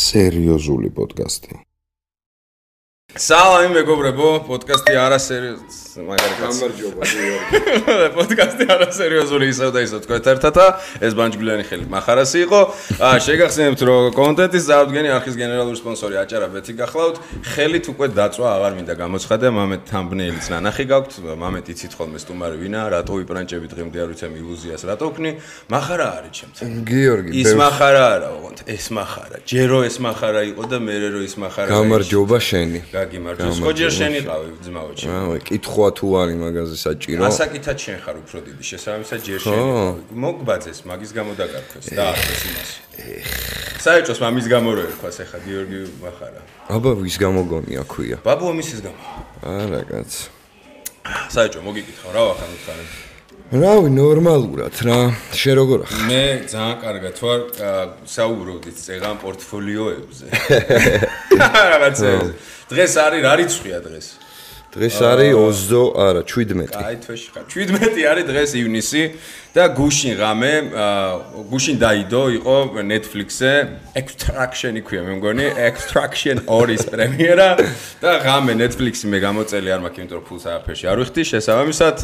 სერიოზული პოდკასტი. Salam მეგობრებო, პოდკასტი არასერიოზული, მაგარი კაცი. გამარჯობა, პოდკასტი არასერიოზული ისევ და ისევ თქვენ ერთად ეს ბანჯგვლიანი ხელი מחარასი იყო. შეგახსენებთ რომ კონტენტის წარმოდგენი არხის გენერალური სპონსორი აჭარა ბეთი გახლავთ. ხელით უკვე დაწვა აღარ მინდა გამოცხადე, მამეთ თამბნეილიც ნანახი გაქვთ, მამეთ იცით ხოლმე სტუმარი ვინა, რატო ვიპრანჭები დღემდე არ ვიცემ ილუზიას რატო ვქნი. מחარა არის ჩემთან. გიორგი, ის מחარა არა, ოღონდ ეს מחარა. ჯერო ეს מחარა იყო და მერე რო ის מחარა. გამარჯობა შენი. გაგიმარჯოს. ხო ჯერ შენი ყავი ძმაო ჩემო. კითხვა თუ არის მაგაზე საჭირო. ასაკითაც შენ ხარ უფრო დიდი, შესაბამისად ჯერ შენი ყავი. მოგბაძეს, მაგის გამო დაგარქვეს და ახლა იმას. საერთოდ მამის გამო რო ერქვას ახლა გიორგი מחარა. აბა ვის გამო გონია ქვია? ბაბუა მისის გამო. არა კაც. საერთოდ მოგიკითხავ რა ვახარ უთხარი. რავი, ნორმალურად რა. შენ როგორ ხარ? მე ძალიან კარგად ვარ, საუბრობდით წეგან პორტფოლიოებზე. რაღაცეებზე. დღეს არის რა რიცხვია დღეს? დღეს არის 20, არა, 17. აი თვეში ხარ. 17 არის დღეს ივნისი და გუშინ ღამე, გუშინ დაიდო იყო Netflix-ზე Extraction იქვია მე მგონი, Extraction 2-ის პრემიერა და ღამე Netflix-ი მე გამოწელი არ მაქვს, იმიტომ რომ ფულს არაფერში არ ვიხდი, შესაბამისად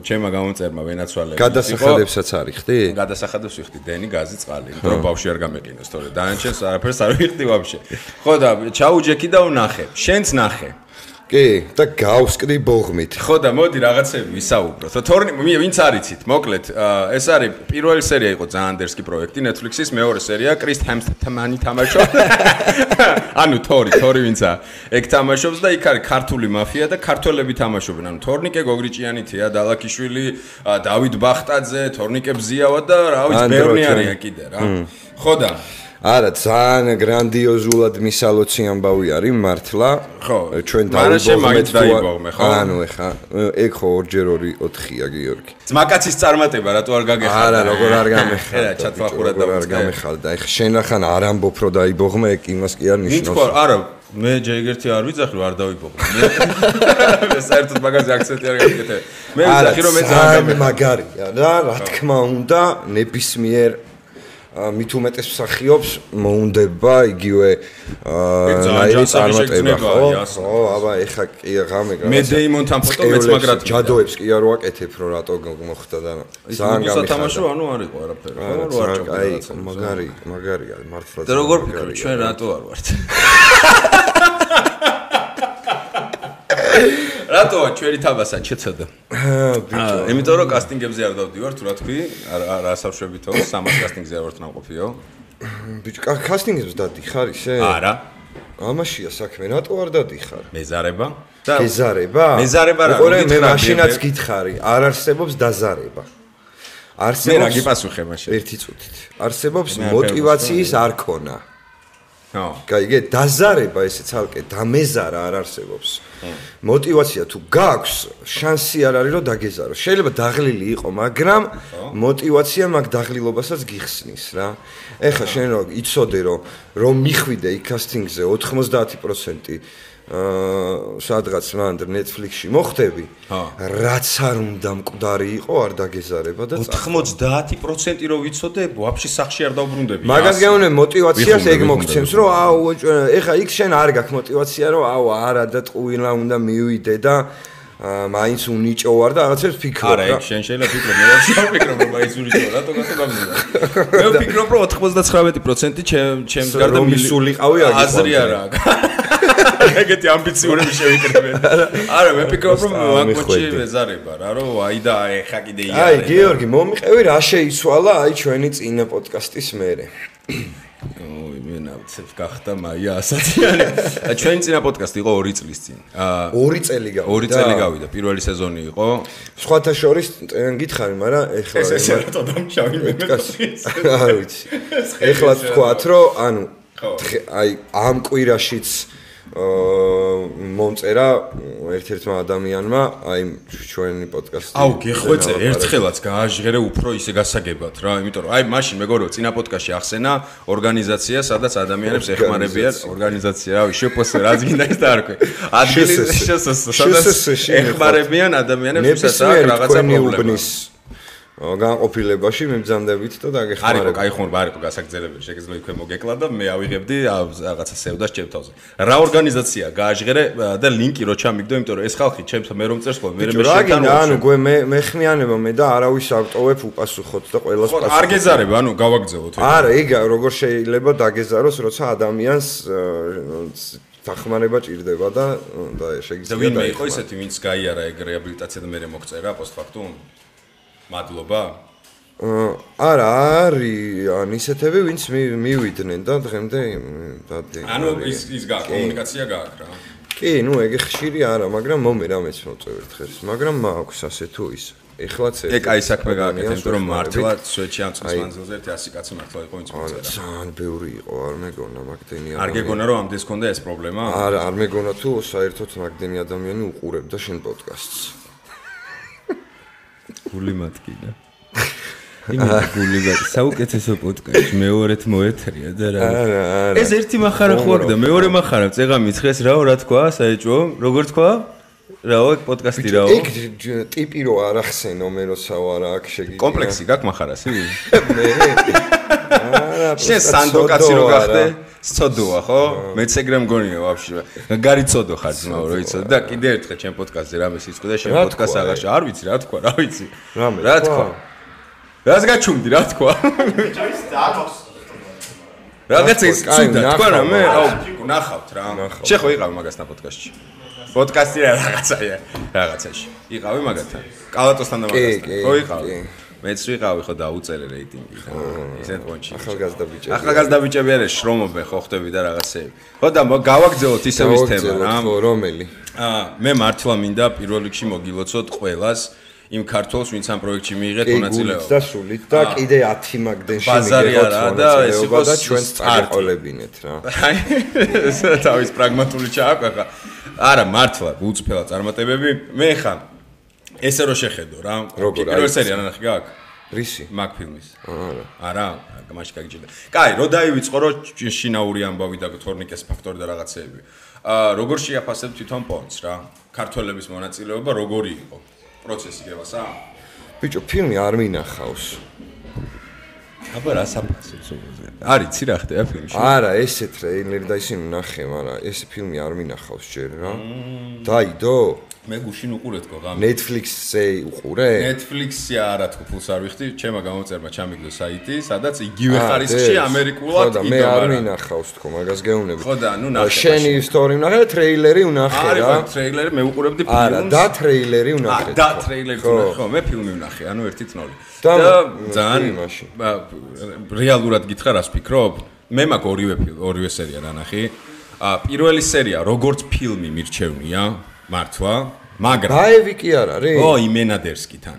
ჩემმა გამომწერმა ვენაცვალე. გადასახადებსაც არიხდი? გადასახადებს ვიხდი დენი, გაზი, წყალი, იმიტომ რომ ბავშვი არ გამეყინოს, თორე დანარჩენს არაფერს არ ვიხდი ვაფშე. ხო და ჩაუჯექი და ვნახე. შენც ნახე. კი, და გავსკდი ბოღმით. ხო და მოდი რაღაცები ვისაუბროთ. თორნი ვინც არიცით, მოკლედ, ეს არის პირველი სერია იყო ძალიან დერსკი პროექტი Netflix-ის, მეორე სერია კრის ჰემსტმანი თამაშობს. ანუ თორი ვინცა ეგ თამაშობს და იქ არის ქართული მაფია და ქართველები თამაშობენ. ანუ თორნიკე გოგრიჭიანითია, დალაკიშვილი, დავით ბახტაძე, თორნიკე ბზიავა და რა ვიცი, ბევრი არიან კიდე რა. ხო და არა, ძალიან გრანდიოზულად მისალოცი ამბავი არის მართლა. ხო, ჩვენ დაიბოღმე, ხო? ანუ ეხა, ეგ ხო 2-4-4-ია გიორგი. ძმაკაცის წარმატება, რატო არ გაგეხარდა? არა, როგორ არ გამეხარდა. ჩათვალყურა და არ გამეხარდა. ეხა შენ ახან არ ამბობ რომ დაიბოღმე, ეგ იმას კი არ ნიშნავს. მითქვა, არა, მე ჯერ ერთი არ ვიძახი რომ არ დავიბოღმე. მე საერთოდ მაგაზე აქცენტი არ გაკეთე. მე ვიძახი რომ მე ძალიან მაგარია რა, რა თქმა უნდა, ნებისმიერ მით უმეტეს მსახიობს მოუნდება იგივე ნაირი წარმატება ხო? აბა ეხა კი ღამე მე დეიმონთან ფოტო მეც მაგრად ჯადოებს კი არ ვაკეთებ რომ რატო მოხდა და ძალიან გამიხარდა. ანუ არ იყო არაფერი ხო? რო არ ჭამდა. აი მაგარია მართლა. და როგორ ფიქრობ ჩვენ რატო არ ვართ? რატოა ჩვენი თამასა შეცოდა? ბიჭო, იმიტომ რომ კასტინგებზე არ დავდივარ, თუ რა თქვი, არ ასავშებითო, 300 კასტინგზე არ ვარ ნამყოფიო. ბიჭო, კასტინგებზე დადიხარ ისე? არა. ამაშია საქმე, რატო არ დადიხარ? მეზარება? მეზარება? მეზარება რა? მე მაშინაც გითხარი, არ არსებობს დაზარება. მე რა გიპასუხე მაშინ? ერთი წუთით. არსებობს мотиваციის არქონა. ხო. გაიგე, დაზარება ესე ცალკე დამეზარა არ არსებობს. мотиваცია თუ გაქვს, შანსი არ არის რომ დაგეზარო. შეიძლება დაღლილი იყო, მაგრამ мотиваცია მაგ დაღლილობასაც გიხსნის რა. ეხლა შენ რო იცოდე რომ მიხვიდე იქ კასტინგზე 90% სადღაც მანდ Netflix-ში მოხდები, რაც არ უნდა მკვდარი იყო, არ დაგეზარება და 90% რო ვიცოდე, ვაფშე სახში არ დავბრუნდები. მაგას გეუნე мотиваციას ეგ მოგცემს, რომ ეხა იქ შენ არ გაქვს мотиваცია, რომ არა და ტყუილა უნდა მივიდე და მაინც უნიჭო ვარ და რაღაცებს ფიქრობ რა. არა, ეგ შენ შეიძლება ფიქრობ, მე არ ვფიქრობ, რომ მაინც უნიჭო, რატო გამიზარდა. მე ვფიქრობ, რომ 99% ჩემს გარდა მისულიყავი აგი. აზრი არა აქვს. ეგეთი ამბიციურები შევიკრებენ. არა, მე ვფიქრობ, რომ მაგ მოჩი მეზარება რა, რომ აი და ეხა კიდე იარე. აი, გიორგი, მომიყევი რა შეიცვალა აი ჩვენი წინა პოდკასტის მერე. ой, მე ნავცებ გახდა მაია ასათიანი. ჩვენი წინა პოდკასტი იყო 2 წლის წინ. 2 წელი გავიდა. 2 წელი გავიდა, პირველი სეზონი იყო. სხვათა შორის გითხარი, მაგრამ ეხლა ეს რატო დამშავი მე არ ვიცი. ეხლა თქვათ, რომ ანუ აი ამ კვირაშიც მომწერა ერთ-ერთმა ადამიანმა აი ჩვენი პოდკასტი. აუ, გეხვეწე, ერთხელაც გააჟღერე უფრო ისე გასაგებად რა, იმიტომ რომ აი მაშინ მეგორო წინა პოდკასტში ახსენა ორგანიზაცია, სადაც ადამიანებს ეხმარებიან ორგანიზაცია, რავი, შეფოსე რაც გინდა ის დაარქვე. ადგილი სადაც ეხმარებიან ადამიანებს, ვისაც აქვს რაღაცა პრობლემა. განყოფილებაში მიბრძანდებით და დაგეხმარებით. არისო, ხომ არისო გასაგრძელებელი, შეგიძლია იქვე მოგეკლა და მე ავიღებდი რაღაცა სევდას ჩემთავზე. რა ორგანიზაცია გააჟღერე და ლინკი რო ჩამიგდო, იმიტომ რომ ეს ხალხი ჩემს მე რომ წერს ხოლმე, მე შეგთან ანუ მე ხმიანება მე და არავის ავტოვებ უპასუხოთ და ყველას პასუხობ. არ გეზარებ, ანუ გავაგზავნოთ. არა, ეგ როგორ შეიძლება დაგეზაროს, როცა ადამიანს დახმარება ჭირდება და შეგიძლია და ვინმე იყო ისეთი, ვინც გაიარა ეგ რეაბილიტაცია და მე მოგწერა პოსტფაქტუმ? მადლობა. არა, არის ან ისეთები, ვინც მივიდნენ და დღემდე დადი. ანუ ის კომუნიკაცია გააქვს რა. კი, ნუ ეგ ხშირი არა, მაგრამ მომე რამეც მოწევ ერთხელ, მაგრამ მაქვს ასე თუ ის. ეხლაც ეგ აი საქმე გააკეთე, იმიტომ რომ მართლა სვეტში ამ წელს მანძილზე 100 კაცი მართლა იყო ვინც მოწერა. ძალიან ბევრი იყო, არ მეგონა მაგდენი არ გეგონა რომ ამდენს ქონდა ეს პრობლემა? არა, არ მეგონა თუ საერთოდ მაგდენი ადამიანი უყურებდა შენ პოდკასტს. გული მათკინა. გული მათ საუკეთესო პოდკასტი მეორეთ მოეთრია და რა. ეს ერთი מחარა ხوار და მეორე מחარა წეღამი ცხეს რაო რა თქვა საეჭვო? როგორ თქვა? რაო ეგ პოდკასტი რაო? ეგ ტიპი რო არ ახსენო მე როსაო არა აქ შეგიძლია. კომპლექსი გაქვს מחარასი? მე. არა, შენ სანდოკაცი რო გახდე? სწოდოა ხო? მეც ეგრე მგონია ვაფშე. გარიცოდო ხარ ძმაო რო იცოდე და კიდე ერთხელ ჩემ პოდკასტზე რამე სიწყო და შენ პოდკასტს აღარ არ ვიცი რა თქვა, რა ვიცი. რა თქვა? რას გაჩუმდი რა თქვა? რაღაც ის ცუდა თქვა რა მე? აუ ნახავთ რა. შე ხო იყავი მაგასთან პოდკასტში? პოდკასტი რაღაცაში. იყავი მაგათთან. კალატოსთან და მაგასთან. ხო იყავი? მეც ვიყავი ხო დაუწერე რეიტინგი და ისეთ პონჩი. ახალგაზრდა ბიჭები არის შრომობენ ხო ხტები და რაღაცები. ხო და გავაგზავნოთ ისევ ის თემა რა. რომელი? მე მართლა მინდა პირველ რიგში მოგილოცოთ ყველას იმ ქართველს ვინც ამ პროექტში მიიღეთ მონაწილეობა. და სულით და კიდე 10 მაგდენში მიიღოთ მონაწილეობა და ჩვენს წარყოლებინეთ რა. თავის პრაგმატული ჩააკვეხა. არა მართლა უწფელა წარმატებები. მე ხა ესე რო შეხედო რა. პირველ სერია ნახე გაქვს? რისი? მაგ ფილმის. არა, გამაში გაგიჭირდა. კაი, რო დაივიწყო რო შინაური ამბავი და თორნიკეს ფაქტორი და რაღაცეები. როგორ შეაფასებ თვითონ პონს რა? ქართველების მონაწილეობა როგორი იყო? პროცესი გევასა? ბიჭო, ფილმი არ მინახავს. აბა რა საფასებს უზე. არის ცი რა ხდება ფილმში? არა, ესე ტრეილერი და ისინი ნახე, მაგრამ ეს ფილმი არ მინახავს ჯერ რა. დაიდო? მე გუშინ უყურეთ გო ღამე. Netflix-ზე უყურე? Netflix-ი არა თქო ფულს არ ვიხდი, ჩემმა გამოწერმა ჩამიგდო საიტი, სადაც იგივე ხარისხში ამერიკულად იდო. მე არ მინახავს თქო, მაგას გეუბნები. ხო და ნუ ნახე. შენი ისტორია ვნახე და ტრეილერი ვნახე რა. არა, ტრეილერი მე უყურებდი ფილმს. არა, და ტრეილერი ვნახე. და ტრეილერი ვნახე, ხო, მე ფილმი ვნახე, ანუ ერთი წნოლი. და ძალიან რეალურად გითხრა რას ფიქრობ? მე მაგ ორივე სერია ნანახი. პირველი სერია როგორც ფილმი მირჩევნია, მართლა მაგრამ დაევი კი არ არის? ო, იმენადერსკიდან.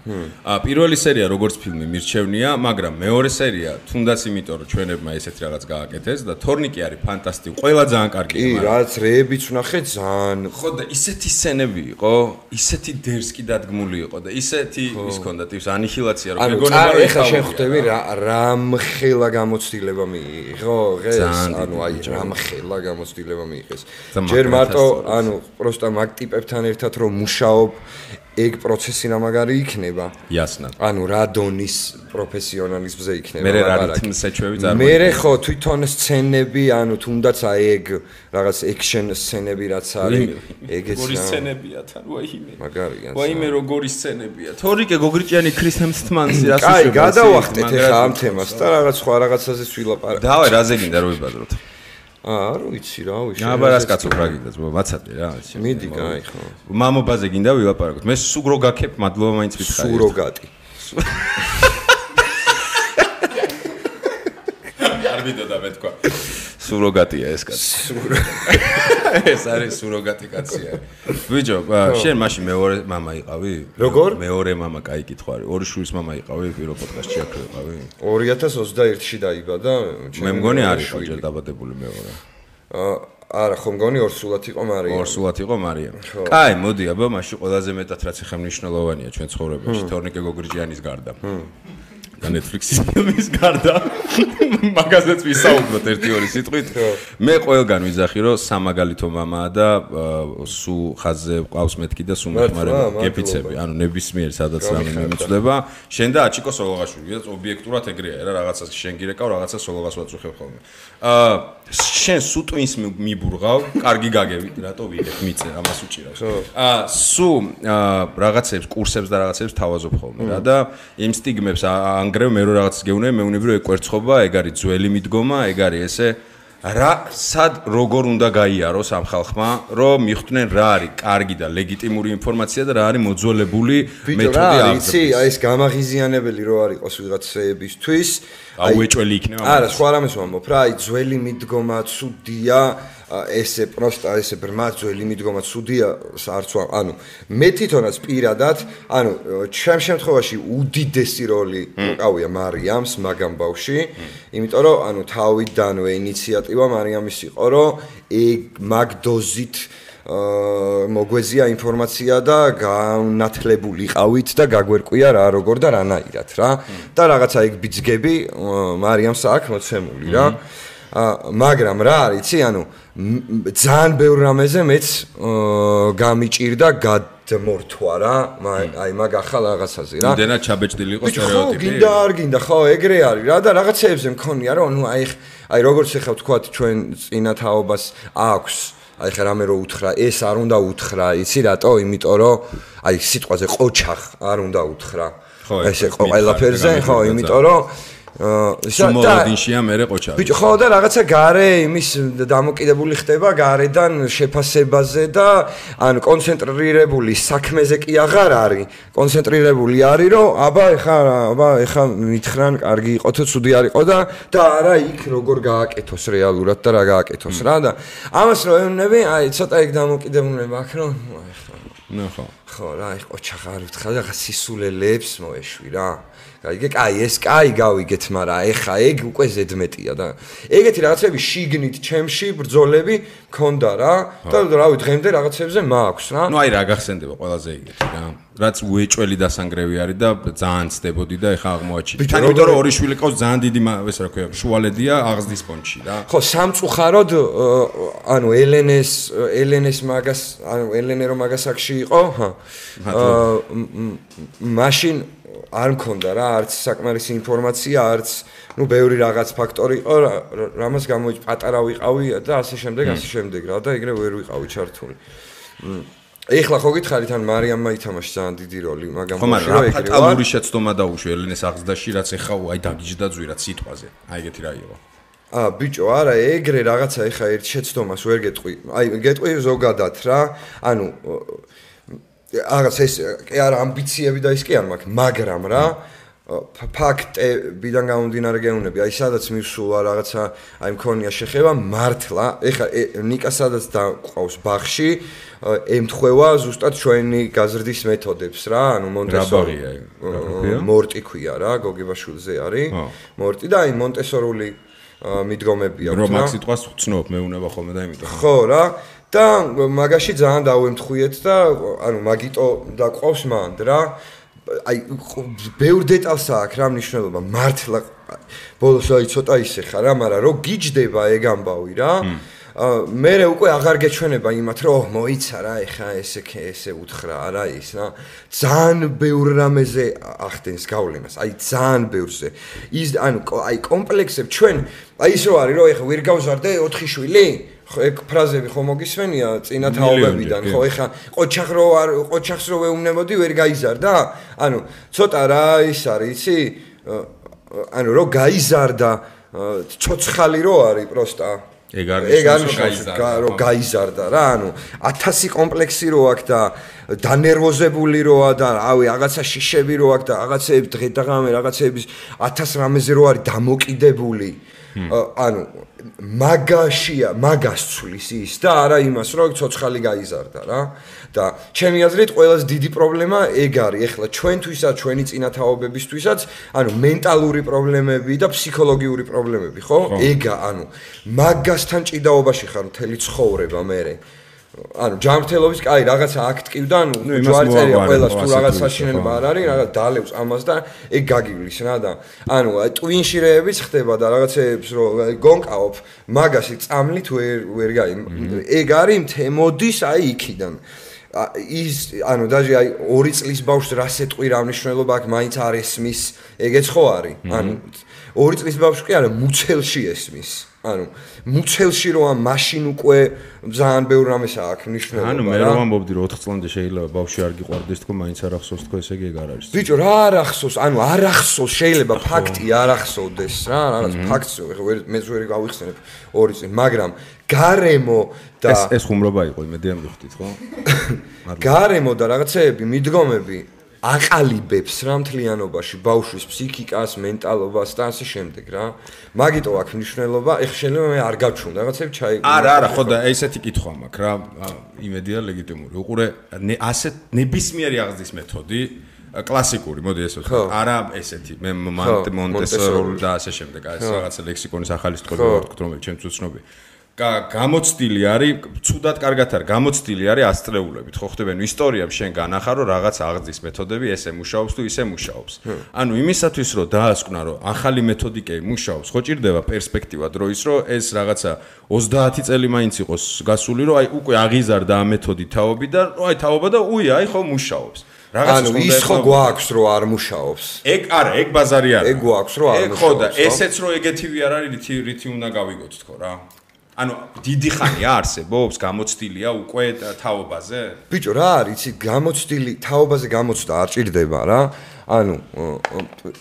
პირველი სერია როგორც ფილმი მირჩევნია, მაგრამ მეორე სერია თუნდაც იმიტომ რომ ჩვენებმა ესეთი რაღაც გააკეთეს და თორნიკი არის ფანტასტიკური, ყველა ძალიან კარგია. კი, რაც რეებიც ვნახე ძალიან. ხო და ისეთი სცენები იყო, ისეთი დერსკი დადგმული იყო და ისეთი ის ქონდა ტიპს ანიჰილაცია რომ მეგონება რომ ეხა შენ ხვდები რამხელა გამოცდილება მიიღო დღეს, ანუ აი რამხელა გამოცდილება მიიღეს. ჯერ მარტო ანუ პროსტა მაგ ტიპებთან ერთად რომ მუშაობ ეგ პროცესი რამაგარი იქნება. Ясно. ანუ რა დონის პროფესიონალიზმზე იქნება. მე რა რითმსეჩვევი წარმოიდგინე. მე ხო თვითონ სცენები, ანუ თუნდაც აი ეგ რაღაც ექშენ სცენები რაც არის, ეგეც როგორი სცენებია თან, ვაიმე. მაგარია. ვაიმე როგორი სცენებია. თორიკე გოგრიჭიანი ქრის ჰემსთმანსი რას უშვება. კაი, გადავახტეთ ახლა ამ თემას და რაღაც სხვა რაღაცაზე ვილაპარაკეთ. დავაი, რაზე გინდა რომ ვიბადროთ? არ ვიცი რა ვიშ. აბა რას კაცო რა გინდა, მაცადე რა. მიდი, კაი ხო. მამობაზე გინდა ვილაპარაკოთ. მე სუგრო გაქებ, მადლობა მაინც ვითხარი. სუროგატი. არ ვიდოდა მე თქვა. სუროგატია ეს კაცი. ეს არის სუროგატი კაცია. ბიჭო, შენ მაშინ მეორე მამა იყავი? როგორ? მეორე მამა, კაი კითხვა არის. ორი შვილის მამა იყავი პირველ პოდკასტში აქ იყავი? 2021-ში დაიბადა. მე მგონი არის ჯერ დაბადებული მეორე. არა, ხო მგონი ორსულად იყო მარია. ორსულად იყო მარია. კაი, მოდი, აბა, მაშინ ყველაზე მეტად რაც ახლა მნიშვნელოვანია ჩვენ ცხოვრებაში, თორნიკე გოგრიჭიანის გარდა. და Netflix-ის ფილმის გარდა მაგაზეც ვისაუბროთ 1-2 სიტყვით. მე ყველგან ვიძახი რომ სამაგალითო მამაა და სუ ხაზზე ყავს მეთქი და სუ მეხმარება გეფიცები. ანუ ნებისმიერ სადაც რამე მიმწვდება. შენ და აჩიკო სოლოღაშვილი და ობიექტურად ეგრეა რა რაღაცას შენ გირეკავ რაღაცას სოლოღას ვაწუხებ ხოლმე. შენ სუ ტვინს მიბურღავ, კარგი გაგევით, რატო ვიღებ მიწე ამას უჭირავს. სუ რაღაცებს, კურსებს და რაღაცებს თავაზობ ხოლმე რა და იმ სტიგმებს ანგრევ მე რო რაღაცას გეუნები, მეუნები რომ ეგ კვერცხობა, ეგ არის ძველი მიდგომა, ეგ არის ესე რა სად როგორ უნდა გაიაროს ამ ხალხმა, რომ მიხვდნენ რა არის კარგი და ლეგიტიმური ინფორმაცია და რა არის მოძველებული მეთოდი იცი, აი ეს გამაღიზიანებელი რო არ იყოს ვიღაცებისთვის, აუეჭველი იქნება. არა, სხვა რამეს ვამბობ რა, აი ძველი მიდგომა ცუდია, ესე პროსტა ესე ბრმა ძველი მიდგომა ცუდია, არც ანუ მე თვითონაც პირადად, ანუ ჩემ შემთხვევაში უდიდესი როლი უკავია მარიამს მაგამ ბავში, იმიტომ რომ ანუ თავიდანვე ინიციატივა მარიამის იყო, რომ მაგ დოზით მოგვეზია ინფორმაცია და განათლებული ყავით და გაგვერკვია რა როგორ და რანაირად რა და რაღაცა ეგ ბიძგები მარიამს აქვს მოცემული რა მაგრამ რა არის იცი ანუ ძალიან ბევრ რამეზე მეც გამიჭირდა გადმორთვა რა აი მაგ ახალ რაღაცაზე რა იმდენად ჩაბეჭდილი იყო სტერეოტიპი გინდა არ გინდა ხო ეგრე არის რა და რაღაცეებზე მქონია რომ ნუ აი როგორც ეხა ვთქვათ ჩვენ წინათაობას აქვს აი ხა რამე რო უთხრა ეს არ უნდა უთხრა იცი რატო იმიტომ რომ აი სიტყვაზე ყოჩახ არ უნდა უთხრა ესე ყველაფერზე ხო იმიტომ რომ სუმოვადინშია მერე ყოჩახი ბიჭო ხო და რაღაცა გარე იმის დამოკიდებული ხდება გარედან შეფასებაზე და ან კონცენტრირებული საქმეზე კი აღარ არის კონცენტრირებული არის რომ აბა ეხა მითხრან კარგი იყო თუ ცუდი არ იყო და არა იქ როგორ გააკეთოს რეალურად და რა გააკეთოს რა და ამას რო ეუბნები აი ცოტა ეგ დამოკიდებულება აქვს რომ ნახო ხო რა აი ყოჩახი არ ვთხარ და სისულელებს მოეშვი რა კაი ეს კაი გავიგეთ მაგრამ ეხა ეგ უკვე ზედმეტია და ეგეთი რაღაცები შიგნით ჩემში ბრძოლები მქონდა რა და რავი დღემდე რაღაცებზე მაქვს რა ნუ აი რა გახსენდება ყველაზე ეგეთი რა რაც უეჭველი დასანგრევი არის და ძალიან ცდებოდი და ეხა აღმოაჩინე თან იმიტომ რომ ორი შვილი ყავს ძალიან დიდი ეს რა ქვია შუალედია აღზრდის ფონდში რა ხო სამწუხაროდ ანუ ელენეს მაგას ანუ ელენე რომ მაგას აქში იყო მაშინ არ მქონდა რა არც საკმარისი ინფორმაცია არც ნუ ბევრი რაღაც ფაქტორი იყო რამას გამოიჭ პატარა ვიყავი და ასე შემდეგ რა და ეგრე ვერ ვიყავი ჩართული ეხლა ხო გითხარით ან მარიამმა ითამაშა ძალიან დიდი როლი მაგრამ ხო მაგრამ რა ფატალური შეცდომა დაუშვი ელენეს აღზრდაში რაც ეხა აი დაგიჯდა ძვირად სიტყვაზე აი ეგეთი რა იყო ბიჭო არა ეგრე რაღაცა ეხა ერთ შეცდომას ვერ გეტყვი აი გეტყვი ზოგადად რა ანუ რაღაც ეს კი არა ამბიციები და ის კი არ მაქვს მაგრამ რა ფაქტებიდან გამომდინარე გეუბნები აი სადაც მივსულა რაღაცა აი მქონია შეხება მართლა ეხა ნიკა სადაც დაყავს ბაღში ემთხვევა ზუსტად ჩვენი გაზრდის მეთოდებს რა ანუ მონტესორია მორტი ქვია რა გოგებაშვილზე არის მორტი და აი მონტესორული მიდგომები აქვს რა რომ მაგ სიტყვას ვცნობ მეუნება ხოლმე და იმიტომ ხო რა და მაგაში ძალიან დავემთხვიეთ და ანუ მაგიტო დაყავს მანდ რა აი ბევრ დეტალს აქვს რა მნიშვნელობა მართლა ბოლოს აი ცოტა ისე ხარ რა მაგრამ რო გიჯდება ეგ ამბავი რა მე უკვე აღარ გეჩვენება იმათ რომ მოიცა რა ეხა ესე უთხრა არა ის რა ძალიან ბევრ რამეზე ახდენს გავლენას აი ძალიან ბევრზე ის ანუ აი კომპლექსები ჩვენ აი ის რო არის რომ ეხა ვერ გავზარდე 4 შვილი ხო ეგ ფრაზები ხო მოგისმენია წინათაობებიდან ხო ეხა ყოჩახს რო ვეუბნებოდი ვერ გაიზარდა ანუ ცოტა რა ის არის იცი ანუ რო გაიზარდა ცოცხალი რო არის პროსტა ეგ არის რო გაიზარდა რა ანუ 1000 კომპლექსი რო აქვს და დანერვოზებული როა და რავი რაღაცა შიშები რო აქვს და რაღაცეები დღე-დღე რაღაცეების 1000 რამეზე რო არის დამოკიდებული ანუ მაგას ცulis ის და არა იმას რომ ცოცხალი გაიზარდა რა და ჩემი აზრით ყველაზე დიდი პრობლემა ეგ არის ეხლა ჩვენთვისაც ჩვენი წინათაობებისთვისაც ანუ მენტალური პრობლემები და ფსიქოლოგიური პრობლემები ხო ეგა ანუ მაგასთან ჭიდაობაში ხარ მთელი ცხოვრება მერე ანუ ჯანმრთელობის კაი რაღაცა აქტივდა, ანუ ჯვარი წერია ყველას თუ რაღაც საშინელება არ არის, რაღაც დალევს ამას და ეგ გაგივლის რა და ანუ ტვინში რეებიც ხდება და რაღაცეებს რომ გონკაობ, მაგასი წამლით ვერ გაი. ეგ არის მოდის აი იქიდან. ის ანუ დაჟე აი 2 წლის ბავშვს რა სეტყვი რა მნიშვნელობა აქვს მაინც არ ესმის ეგეც ხო არის ანუ 2 წლის ბავშვი კი არა მუცელში ესმის ანუ მუცელში რო ამ მაშინ უკვე ძალიან ბევრ რამეს აქვს მნიშვნელობა ანუ მე რომ ამბობდი რომ 4 წლამდე შეიძლება ბავშვი არ გიყვარდეს თქო მაინც არ ახსოვს თქო ესე ეგ არ არის ბიჭო რა არ ახსოვს ანუ არ ახსოვს შეიძლება ფაქტი არ ახსოვდეს რა რაღაც ფაქტს მე ვერ გავიხსენებ 2 წელი მაგრამ გარემო და ეს ხუმრობა იყო იმედი ამ მიხდით ხო გარემო და რაღაცეები მიდგომები აყალიბებს რა მთლიანობაში ბავშვის ფსიქიკას, მენტალობას და ასე შემდეგ რა. მაგიტო აქვს მნიშვნელობა, ეხლა შეიძლება მე არ გავჩვენ რაღაცები ჩაიგო. არა, ხო და ესეთი კითხვა მაქვს რა, იმედია ლეგიტიმური. უყურე ასეთ ნებისმიერი აღზრდის მეთოდი კლასიკური, მოდი ესე ვთქვა. არა ესეთი, მე მონტესორული და ასე შემდეგ, ეს რაღაცა ლექსიკონის ახალი სიტყვები ვარ თქო, რომელიც ჩემთვის უცნობია. გამოცდილი არის, ცუდად კარგად არის, გამოცდილი არის ასწლეულებით, ხო ხდება, ნუ ისტორიამ შენ განახარ, რომ რაღაც აღზრდის მეთოდები ესე მუშაობს თუ ისე მუშაობს. ანუ იმისათვის რომ დაასკვნა, რომ ახალი მეთოდიკები მუშაობს, ხო ჭირდება პერსპექტივა დროის, რომ ეს რაღაცა 30 წელი მაინც იყოს გასული, რომ აი უკვე აღიზარდა ამ მეთოდი თაობი და აი თაობა და აი ხო მუშაობს. ანუ ის ხო გვაქვს რომ არ მუშაობს. ეგ არა, ეგ ბაზარი არა. ეგ გვაქვს რომ არ მუშაობს. ეგ ხო და ესეც რომ ეგეთივე არ არის, რითი უნდა გავიგოთ თქო რა. ანუ დიდი ხანია არსებობს, გამოცდილია უკვე თაობაზე? ბიჭო, რა არის, იცი, გამოცდილი თაობაზე გამოცდა არ ჭირდება რა. ანუ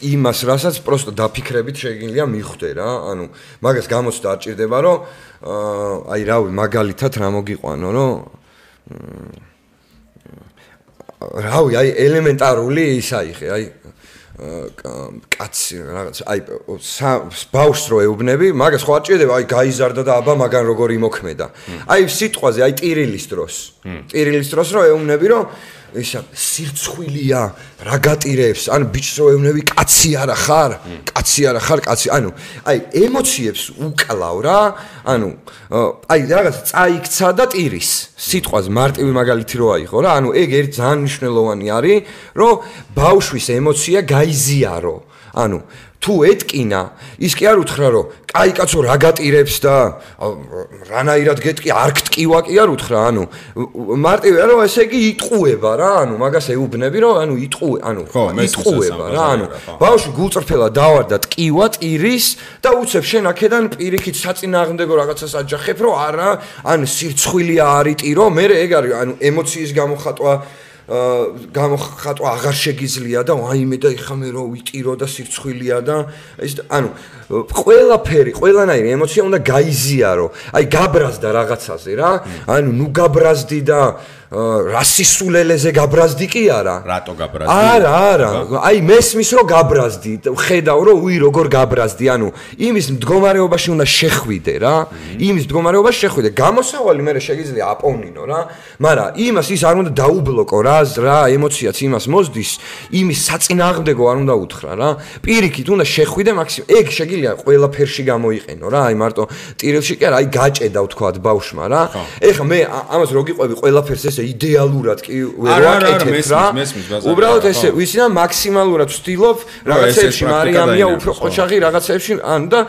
იმას, რასაც პროსტო დაფიქრებით შეგიძლია მიხვდე რა. ანუ მაგას გამოცდა არ ჭირდება, რომ აი რავი, მაგალითად რა მოგიყვანო, რომ რავი, აი ელემენტარული ის აიხე, აი კაცი რაღაც აი ბავშვს რო ეუბნები მაგას ხო არ ჭირდება აი გაიზარდა და აბა მაგან როგორ იმოქმედა აი სიტყვაზე აი ტირილის დროს რო ეუბნები რომ ისა სირცხვილია რა გატირებს ან ბიჭს რო ეუბნები კაცი არა ხარ კაცი ანუ აი ემოციებს უკლავ რა ანუ აი რაღაც წაიქცა და ტირის სიტყვაზე მარტივი მაგალითი რო აიღო რა ანუ ეგ ერთ ძალიან მნიშვნელოვანი არის რომ ბავშვის ემოცია გაიზიარო ანუ თუ ეტკინა ის კი არ უთხრა რომ კაი კაცო რა გატირებს და რანაირად გეტკი არ გტკივა კი არ უთხრა ანუ მარტივია რომ ესე იგი იტყუება რა ანუ მაგას ეუბნები რომ ანუ იტყუება რა ანუ ბავშვი გულწრფელად დავარდა ტკივა ტირის და უცებ შენ აქედან პირიქით საწინააღმდეგო რაღაცას აჯახებ რომ არა ან სირცხვილია არიტირო მე ეგ არის ანუ ემოციის გამოხატვა აღარ შეგიძლია და აიმე და ეხა მე რო ვიტირო და სირცხვილია და ეს ანუ ყველაფერი ყველანაირი ემოცია უნდა გაიზიარო აი გაბრაზდა რაღაცაზე რა ანუ ნუ გაბრაზდი და რასისულელეზე გაბრაზდი კი არა რატო გაბრაზდი არა აი მესმის რომ გაბრაზდი ხედავ რომ უი როგორ გაბრაზდი ანუ იმის მდგომარეობაში უნდა შეხვიდე რა იმის მდგომარეობაში შეხვიდე გამოსავალი მე შეგიძლია აპოვნინო რა მაგრამ იმას ის არ უნდა დაუბლოკო რა ემოციაც იმას მოსდის იმის საწინააღმდეგო არ უნდა უთხრა რა პირიქით უნდა შეხვიდე მაქსიმუმ ეგ შეგიძლია ყველაფერში გამოიყენო რა აი მარტო ტირილში კი არა აი გაჭედა ვთქვათ ბავშვმა რა ეხლა მე ამას რო გიყვები ყველაფერს ესე იდეალურად კი ვერ ვაკეთებ რა უბრალოდ ესე ვიცი და მაქსიმალურად ვცდილობ რაღაცებში მარიამია უფრო ყოჩაღი რაღაცებში ანუ და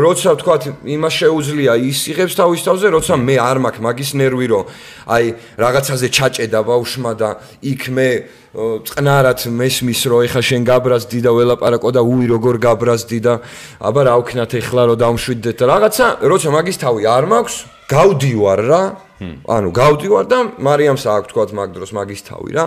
როცა ვთქვათ იმას შეუძლია ის იღებს თავის თავზე როცა მე არ მაქვს მაგის ნერვი რომ აი რაღაცაზე ჩაჭედა ბავშვმა და იქ მე წყნარად მესმის რომ ეხა შენ გაბრაზდი და ველაპარაკო და უი როგორ გაბრაზდი და აბა რა ვქნათ ეხლა რომ დავმშვიდდეთ და რაღაცა როცა მაგის თავი არ მაქვს გავდივარ რა ანუ გავდივარ და მარიამს აქვს თქვათ მაგ დროს მაგის თავი რა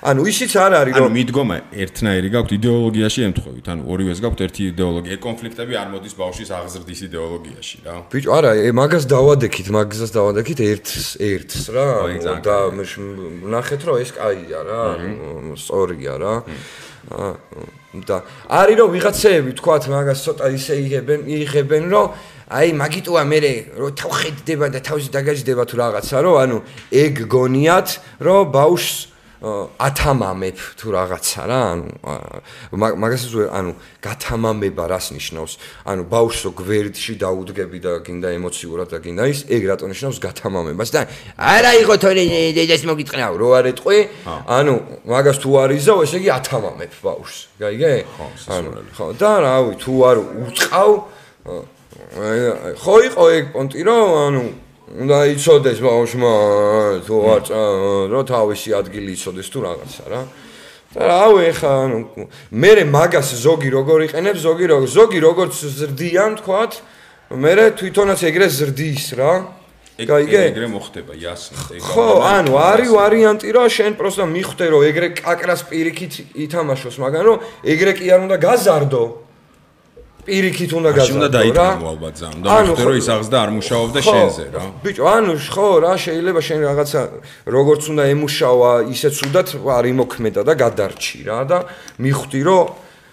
ანუ ისიც არ არის რომ ანუ მიდგომა ერთნაირი გაქვთ იდეოლოგიაში ემთხვევით ანუ ორივეს გაქვთ ერთი იდეოლოგია კონფლიქტები არ მოდის ბავშვის აღზრდის იდეოლოგიაში რა ბიჭო არა მაგას დავადექით ერთს რა და ნახეთ რომ ეს კაია რა სწორია რა და არის რომ ვიღაცეები თქვათ მაგას ცოტა ისე იღებენ რომ აი მაგიტოა მე რომ თავხედდება და თავში დაგაჯდება თუ რაღაცა რომ ანუ ეგ გონიათ რომ ბავშვს ათამამებ თუ რაღაცა რა, მაგასაც გათამამება რას ნიშნავს? ბავშვსო გვერდში დაუდგები და გინდა ემოციურად და გინდა ის, ეგ რატო ნიშნავს გათამამებას და არა იყო თორე დედას მოგიტყნაო, რო არ ეტყვი, მაგას თუ არ იზავ, ესე იგი ათამამებ ბავშვს. გაიგე? ხო, და რავი, თუ არ უწყავ, ხო იყო ეგ პონტი, რომ უნდა იცოდეს ბავშვმა თუ არ რომ თავისი ადგილი იცოდეს თუ რაღაცა რა. და რავი ეხა მე მაგას ზოგი როგორ იყენებს, ზოგი როგორც ზრდიან თქვათ, მე თვითონაც ეგრე ზრდის რა. გაიგე? ეგრე მოხდება, იასნად. ხო, არის ვარიანტი რომ შენ პროსტა მიხვდე რომ ეგრე კაკრას პირიქით ითამაშოს, მაგრამ რომ ეგრე კი არ უნდა გაზარდო. პირიქით უნდა გაზარდო რა. უნდა დაიწყო ალბათ ზამ. და მიხვდე რომ ის აღზდა არ მუშაობდა შენზე რა. ბიჭო, ხო რა, შეიძლება შენ რაღაცა როგორც უნდა ემუშავა, ისეც უნდათ არ იმოქმედა და გადარჩი რა და მიხვდი რომ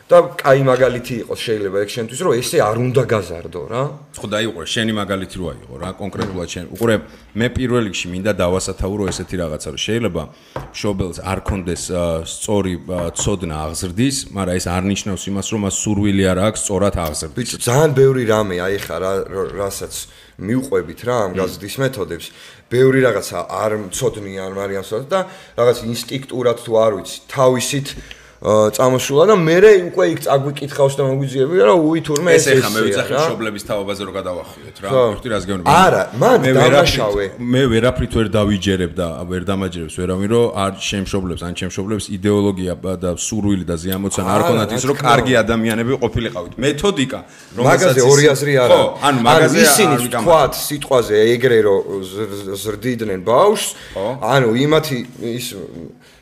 და კაი მაგალითი იყოს შეიძლება ეგ შენთვის რომ ესე არ უნდა გაზარდო რა. ხო დაიყურე, შენი მაგალითი რო აიღო რა, კონკრეტულად შენ. უყურე, მე პირველ რიგში მინდა დავასათაურო ესეთი რაღაცა, რომ შეიძლება მშობელს არ კონდეს სწორი ცოდნა აღზრდის, მაგრამ ეს არ ნიშნავს იმას, რომ მას სურვილი არ აქვს სწორად აღზრდის. ბიჭო, ძალიან ბევრი რამე აი ხა რასაც მიუყვებით რა ამ გაზრდის მეთოდებს. ბევრი რაღაცა არ მცოდნიან მარიამს და რაღაც ინსტინქტურად თუ არ ვიცი, თავისით წამოსულა და მე უკვე იქ წაგვიკითხავს და მოგვიძიებია რომ უი თურმე ეს ეხა მე ვიცახი მშობლების თავობაზე რო გადავახიოთ რა ვიხდი რას გეუბნები არა მან დამაშავე მე ვერაფრით ვერ დავიჯერებ და ვერ დამაჯერებს ვერავინ რომ არ შემშობლებს ან შემშობლებს იდეოლოგია და სურვილი და ზიამოცანა არ ქონათ ის რომ კარგი ადამიანები ყოფილიყავით მეთოდიკა მაგაზე ორი აზრი არა ხო ანუ მაგაზე ისინი თქვათ სიტყვაზე ეგრე რომ ზრდიდნენ ბავშვს ანუ იმათი ის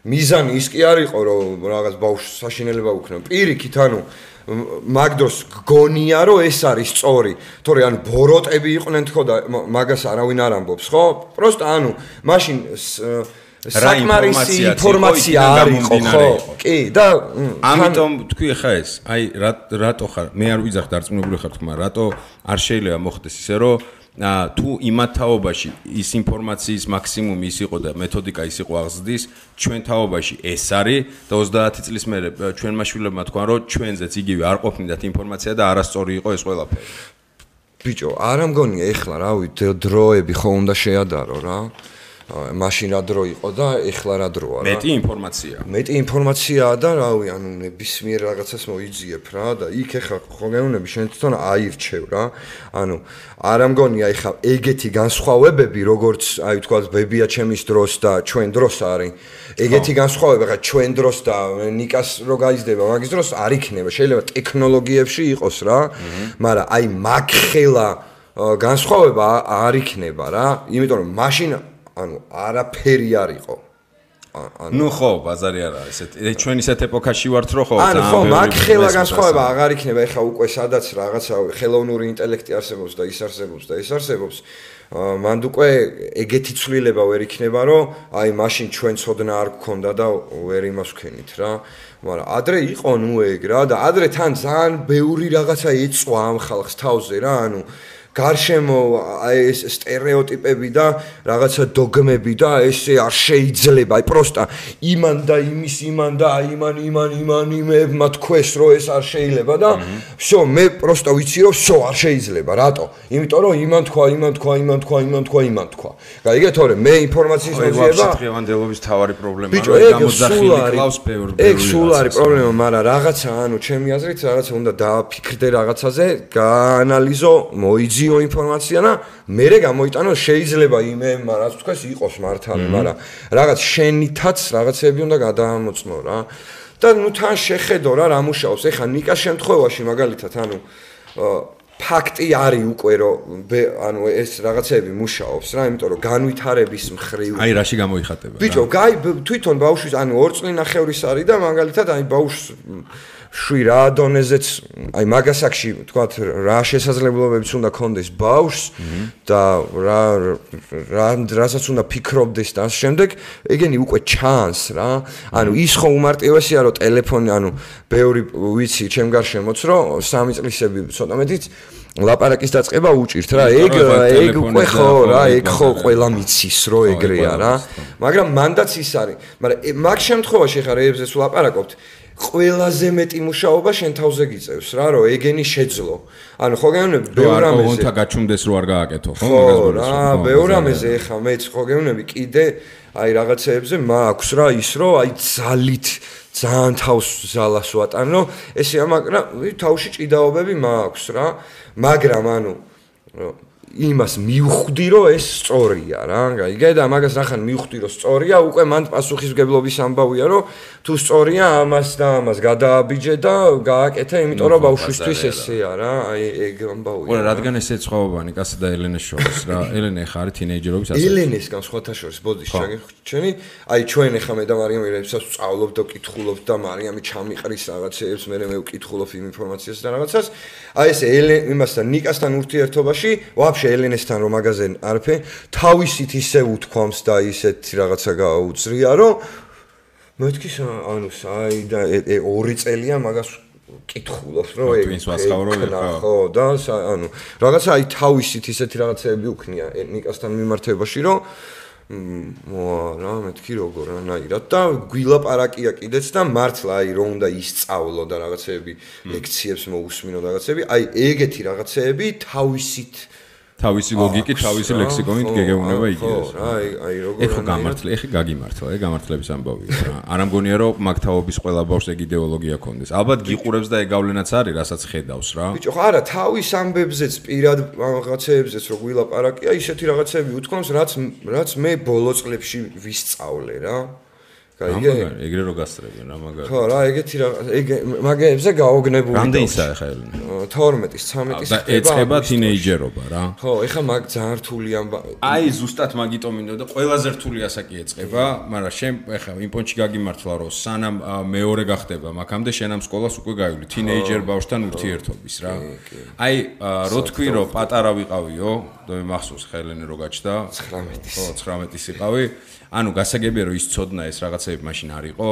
მიზანი ის კი არ იყო რომ რაღაც ბავშვს საშინელება უქნო პირიქით ანუ მაგდროს გგონია რომ ეს არის სწორი თორე ანუ ბოროტები იყვნენ თქო და მაგას არავინ არ ამბობს ხო პროსტა ანუ მაშინ საკმარისი ინფორმაცია არ იყო ხო კი და ამიტომ თქვი ხა ეს აი რატო ხარ მე არ ვიძახ დარწმუნებული ხარ თქმა რატო არ შეიძლება მოხდეს ისე რომ თუ იმათ თაობაში ის ინფორმაციის მაქსიმუმი ის იყო და მეთოდიკა ის იყო აღზრდის ჩვენ თაობაში ეს არის და 30 წლის მერე ჩვენმა შვილებმა თქვან რომ ჩვენზეც იგივე არ ყოფნიდათ ინფორმაცია და არასწორი იყო ეს ყველაფერი ბიჭო არა მგონია ეხლა რავი დროები ხო უნდა შეადარო რა მაშინ რა დრო იყო და ეხლა რა დროა რა მეტი ინფორმაციაა და რავი ანუ ნებისმიერ რაღაცას მოიძიებ რა და იქ ეხლა ხო გეუბნები შენ თვითონ აირჩევ რა ანუ არა მგონია ეხლა ეგეთი განსხვავებები როგორც აი თქვა ბებია ჩემის დროს და ჩვენ დროს არის ეგეთი განსხვავება ხა ჩვენ დროს და ნიკას რო გაიზრდება მაგის დროს არ იქნება შეიძლება ტექნოლოგიებში იყოს რა მაგრამ აი მაგხელა განსხვავება არ იქნება რა იმიტომ რომ მაშინ ანუ არაფერი არ იყო. ნუ ხო, ბაზარი არა, ესეთი ჩვენ ისეთ ეპოქაში ვართ, რომ ხო, ანუ ხო, მაგხელა განსხვავება აღარ იქნება, ეხლა უკვე სადაც რაღაცა ხელოვნური ინტელექტი არსებობს და ის არსებობს და ეს არსებობს. მანდ უკვე ეგეთი ცვლილება ვერ იქნება, რომ აი მაშინ ჩვენ ცოდნა არ გქონდა და ვერ იმას ვქენით რა. მაგრამ ადრე იყო ნუ ეგ რა და ადრე თან ძალიან ბევრი რაღაცა ეწვა ამ ხალხს თავზე რა, ანუ გარშემო აი ეს სტერეოტიპები და რაღაცა დოგმები და ესე არ შეიძლება აი პროსტა იმან და იმის იმან და იმებმა თქვეს რომ ეს არ შეიძლება და всё მე პროსტა ვიცი რომ всё არ შეიძლება რატო იმიტომ რომ იმან თქვა გაიგე თორე მე ინფორმაციის მოძიება დღევანდელობის თავარი პრობლემაა რომ გამოძახილი კლავს ბევრი ეგ სულ არის პრობლემა მაგრამ რაღაცა ანუ ჩემი აზრით რაღაცა უნდა დააფიქრდე რაღაცაზე გაანალიზო მოიძიო ინფორმაცია და მერე გამოიტანო შეიძლება იმემა რაც თქვეს იყოს მართალი მაგრამ რაღაც შენითაც რაღაცები უნდა გადაამოწმო რა და ნუ თან შეხედო რა მუშაობს ეხა ნიკას შემთხვევაში მაგალითად ანუ ფაქტი არის უკვე რომ ანუ ეს რაღაცები მუშაობს რა იმიტომ რომ განვითარების მხრივ აი რაში გამოიხატება ბიჭო თვითონ ბავშვის ანუ 2 წლინახევრის არის და მაგალითად აი ბავშვს შვი რა დონეზეც აი მაგასაკში თქვათ რა შესაძლებლობებიც უნდა კონდეს ბავშვს და რასაც უნდა ფიქრობდეს და ამ შემდეგ ეგენი უკვე ჩანს რა ანუ ის ხო უმარტივესია რომ ტელეფონი ანუ ბევრი ვიცი ჩემ გარშემოც რომ 3 წლისები ცოტა მეტიც ლაპარაკის დაწყება უჭირთ რა ეგ უკვე ხო რა ეგ ხო ყველა მიცის რომ ეგრეა რა მაგრამ მანდაც ის არის მაგრამ მაგ შემთხვევაში ხარ ეებზეც ვლაპარაკობთ ყველაზე მეტი მუშაობა შენ თავზე გიწევს რა რომ ეგენი შეძლო ანუ ხო გეუბნები ბევრ რამეზე კონთა გაჩუმდეს რო არ გააკეთო ხო რა ბევრ რამეზე ეხა მეც ხო გეუბნები კიდე აი რაღაცეებზე მაქვს რა ის რომ აი ძალით ძალიან თავს ზალას ვატანო ესე მაგრამ თავში ჭიდაობები მაქვს რა მაგრამ ანუ იმას მივხვდი რომ ეს სწორია რა გაიგე და მაგას ნახან მივხვდი რომ სწორია უკვე მან პასუხისმგებლობის ამბავია რომ თუ სწორია ამას და ამას გადააბიჯე და გააკეთე იმიტომ რომ ბავშვისთვის ესეა რა აი ეგ ამბავია ხო რადგან ესე ცხოვანი კაცი და ელენეს შორის რა ელენე ხარ თინეიჯერობის ასე ელენესგან სხვათა შორის ბოდის ჩაგიხვჩენი აი ჩვენ ახლა მე და მარიამი რებსაც ვწავლობ და ვკითხულობ და მარიამი ჩამიყრის რაღაცეებს მე ვკითხულობ იმ ინფორმაციას და რაღაცას აი ეს იმასთან ნიკასთან ურთიერთობაში ვაფშე ელენესთან რომ მაგაზე არაფერი თავისით ისე უთქვამს და ისეთ რაღაცა გაუძრია რომ მეთქი ანუ აი და 2 წელია მაგას კითხულობს რომ ეგ ხო და ანუ რაღაცა აი თავისით ისეთი რაღაცები უქნია ნიკასთან მიმართებაში რომ რა მეთქი როგორ ანაირად და გვილაპარაკია კიდეც და მართლა აი რომ უნდა ისწავლო და რაღაცეები ლექციებს მოусმინო და რაღაცეები აი ეგეთი რაღაცეები თავისი ლოგიკით, თავისი ლექსიკონით გეგეუნება იგივეს. აი როგორ ეხა გამართლე, ეხა გაგიმართლა, ეგ გამართლების ამბავია რა. არ ამგონია რომ მაგ თაობის ყველა ბავშვს ეგ იდეოლოგია ქონდეს. ალბათ გიყურებს და ეგ გავლენაც არის, რასაც ხედავს რა. ბიჭო, არა, თავის ამბებზეც პირად რაღაცეებზეც რო გვილაპარაკია, ისეთი რაღაცეები უთქვამს, რაც მე ბოლო წლებში ვისწავლე რა. გაიგე? ეგრე რო გასწრებენ რა მაგარი. ხო, რა, ეგეთი რა, ეგ მაგებზე გაოგნებული. რამდენისა ხა ელენე? 12-ის, 13-ის და ეწება თინეიჯერობა რა. ხო, ეხა მაგ ძალიან რთული აი ზუსტად მაგიტომ მინდოდა და ყველაზე რთული ასაკი ეწება, მაგრამ შენ ეხა იმ პონჩი გაგიმართლა რომ სანამ მეორე გახდება, მაგამდე შენ ამ სკოლას უკვე გაივლი თინეიჯერ ბავშვთან ურთიერთობის რა. აი რო თქვი რომ პატარა ვიყავიო, და მე მახსოვს ხა ელენე რო გაჩნდა 19-ის. ხო, 19-ის იყავი. ანუ გასაგებია რომ ის ცოდნა ეს რაღაცები მაშინ არ იყო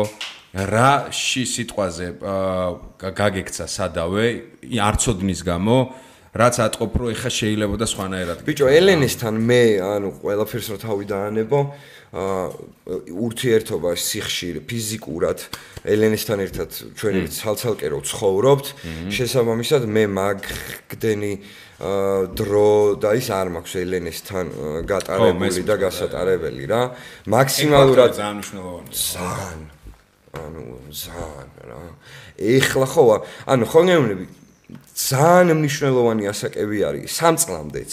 რაში სიტყვაზე გაგექცა სადავე არ ცოდნის გამო რაც ატყობ რომ ეხა შეიძლება და სხვანაირად ბიჭო ელენესთან მე ანუ ყველაფერს რო თავი დაანებო ურთიერთობა სიხშირე ფიზიკურად ელენესთან ერთად ჩვენ ცალცალკე რო ცხოვრობთ შესაბამისად მე მაგდენი დრო და ის არ მაქვს ელენესთან გატარებული და გასატარებელი რა მაქსიმალურად ძალიან მნიშვნელოვანია ძალიან რა ეხლა ხო ანუ ხო გეუბნები ძალიან მნიშვნელოვანი ასაკები არის 3 წლამდეც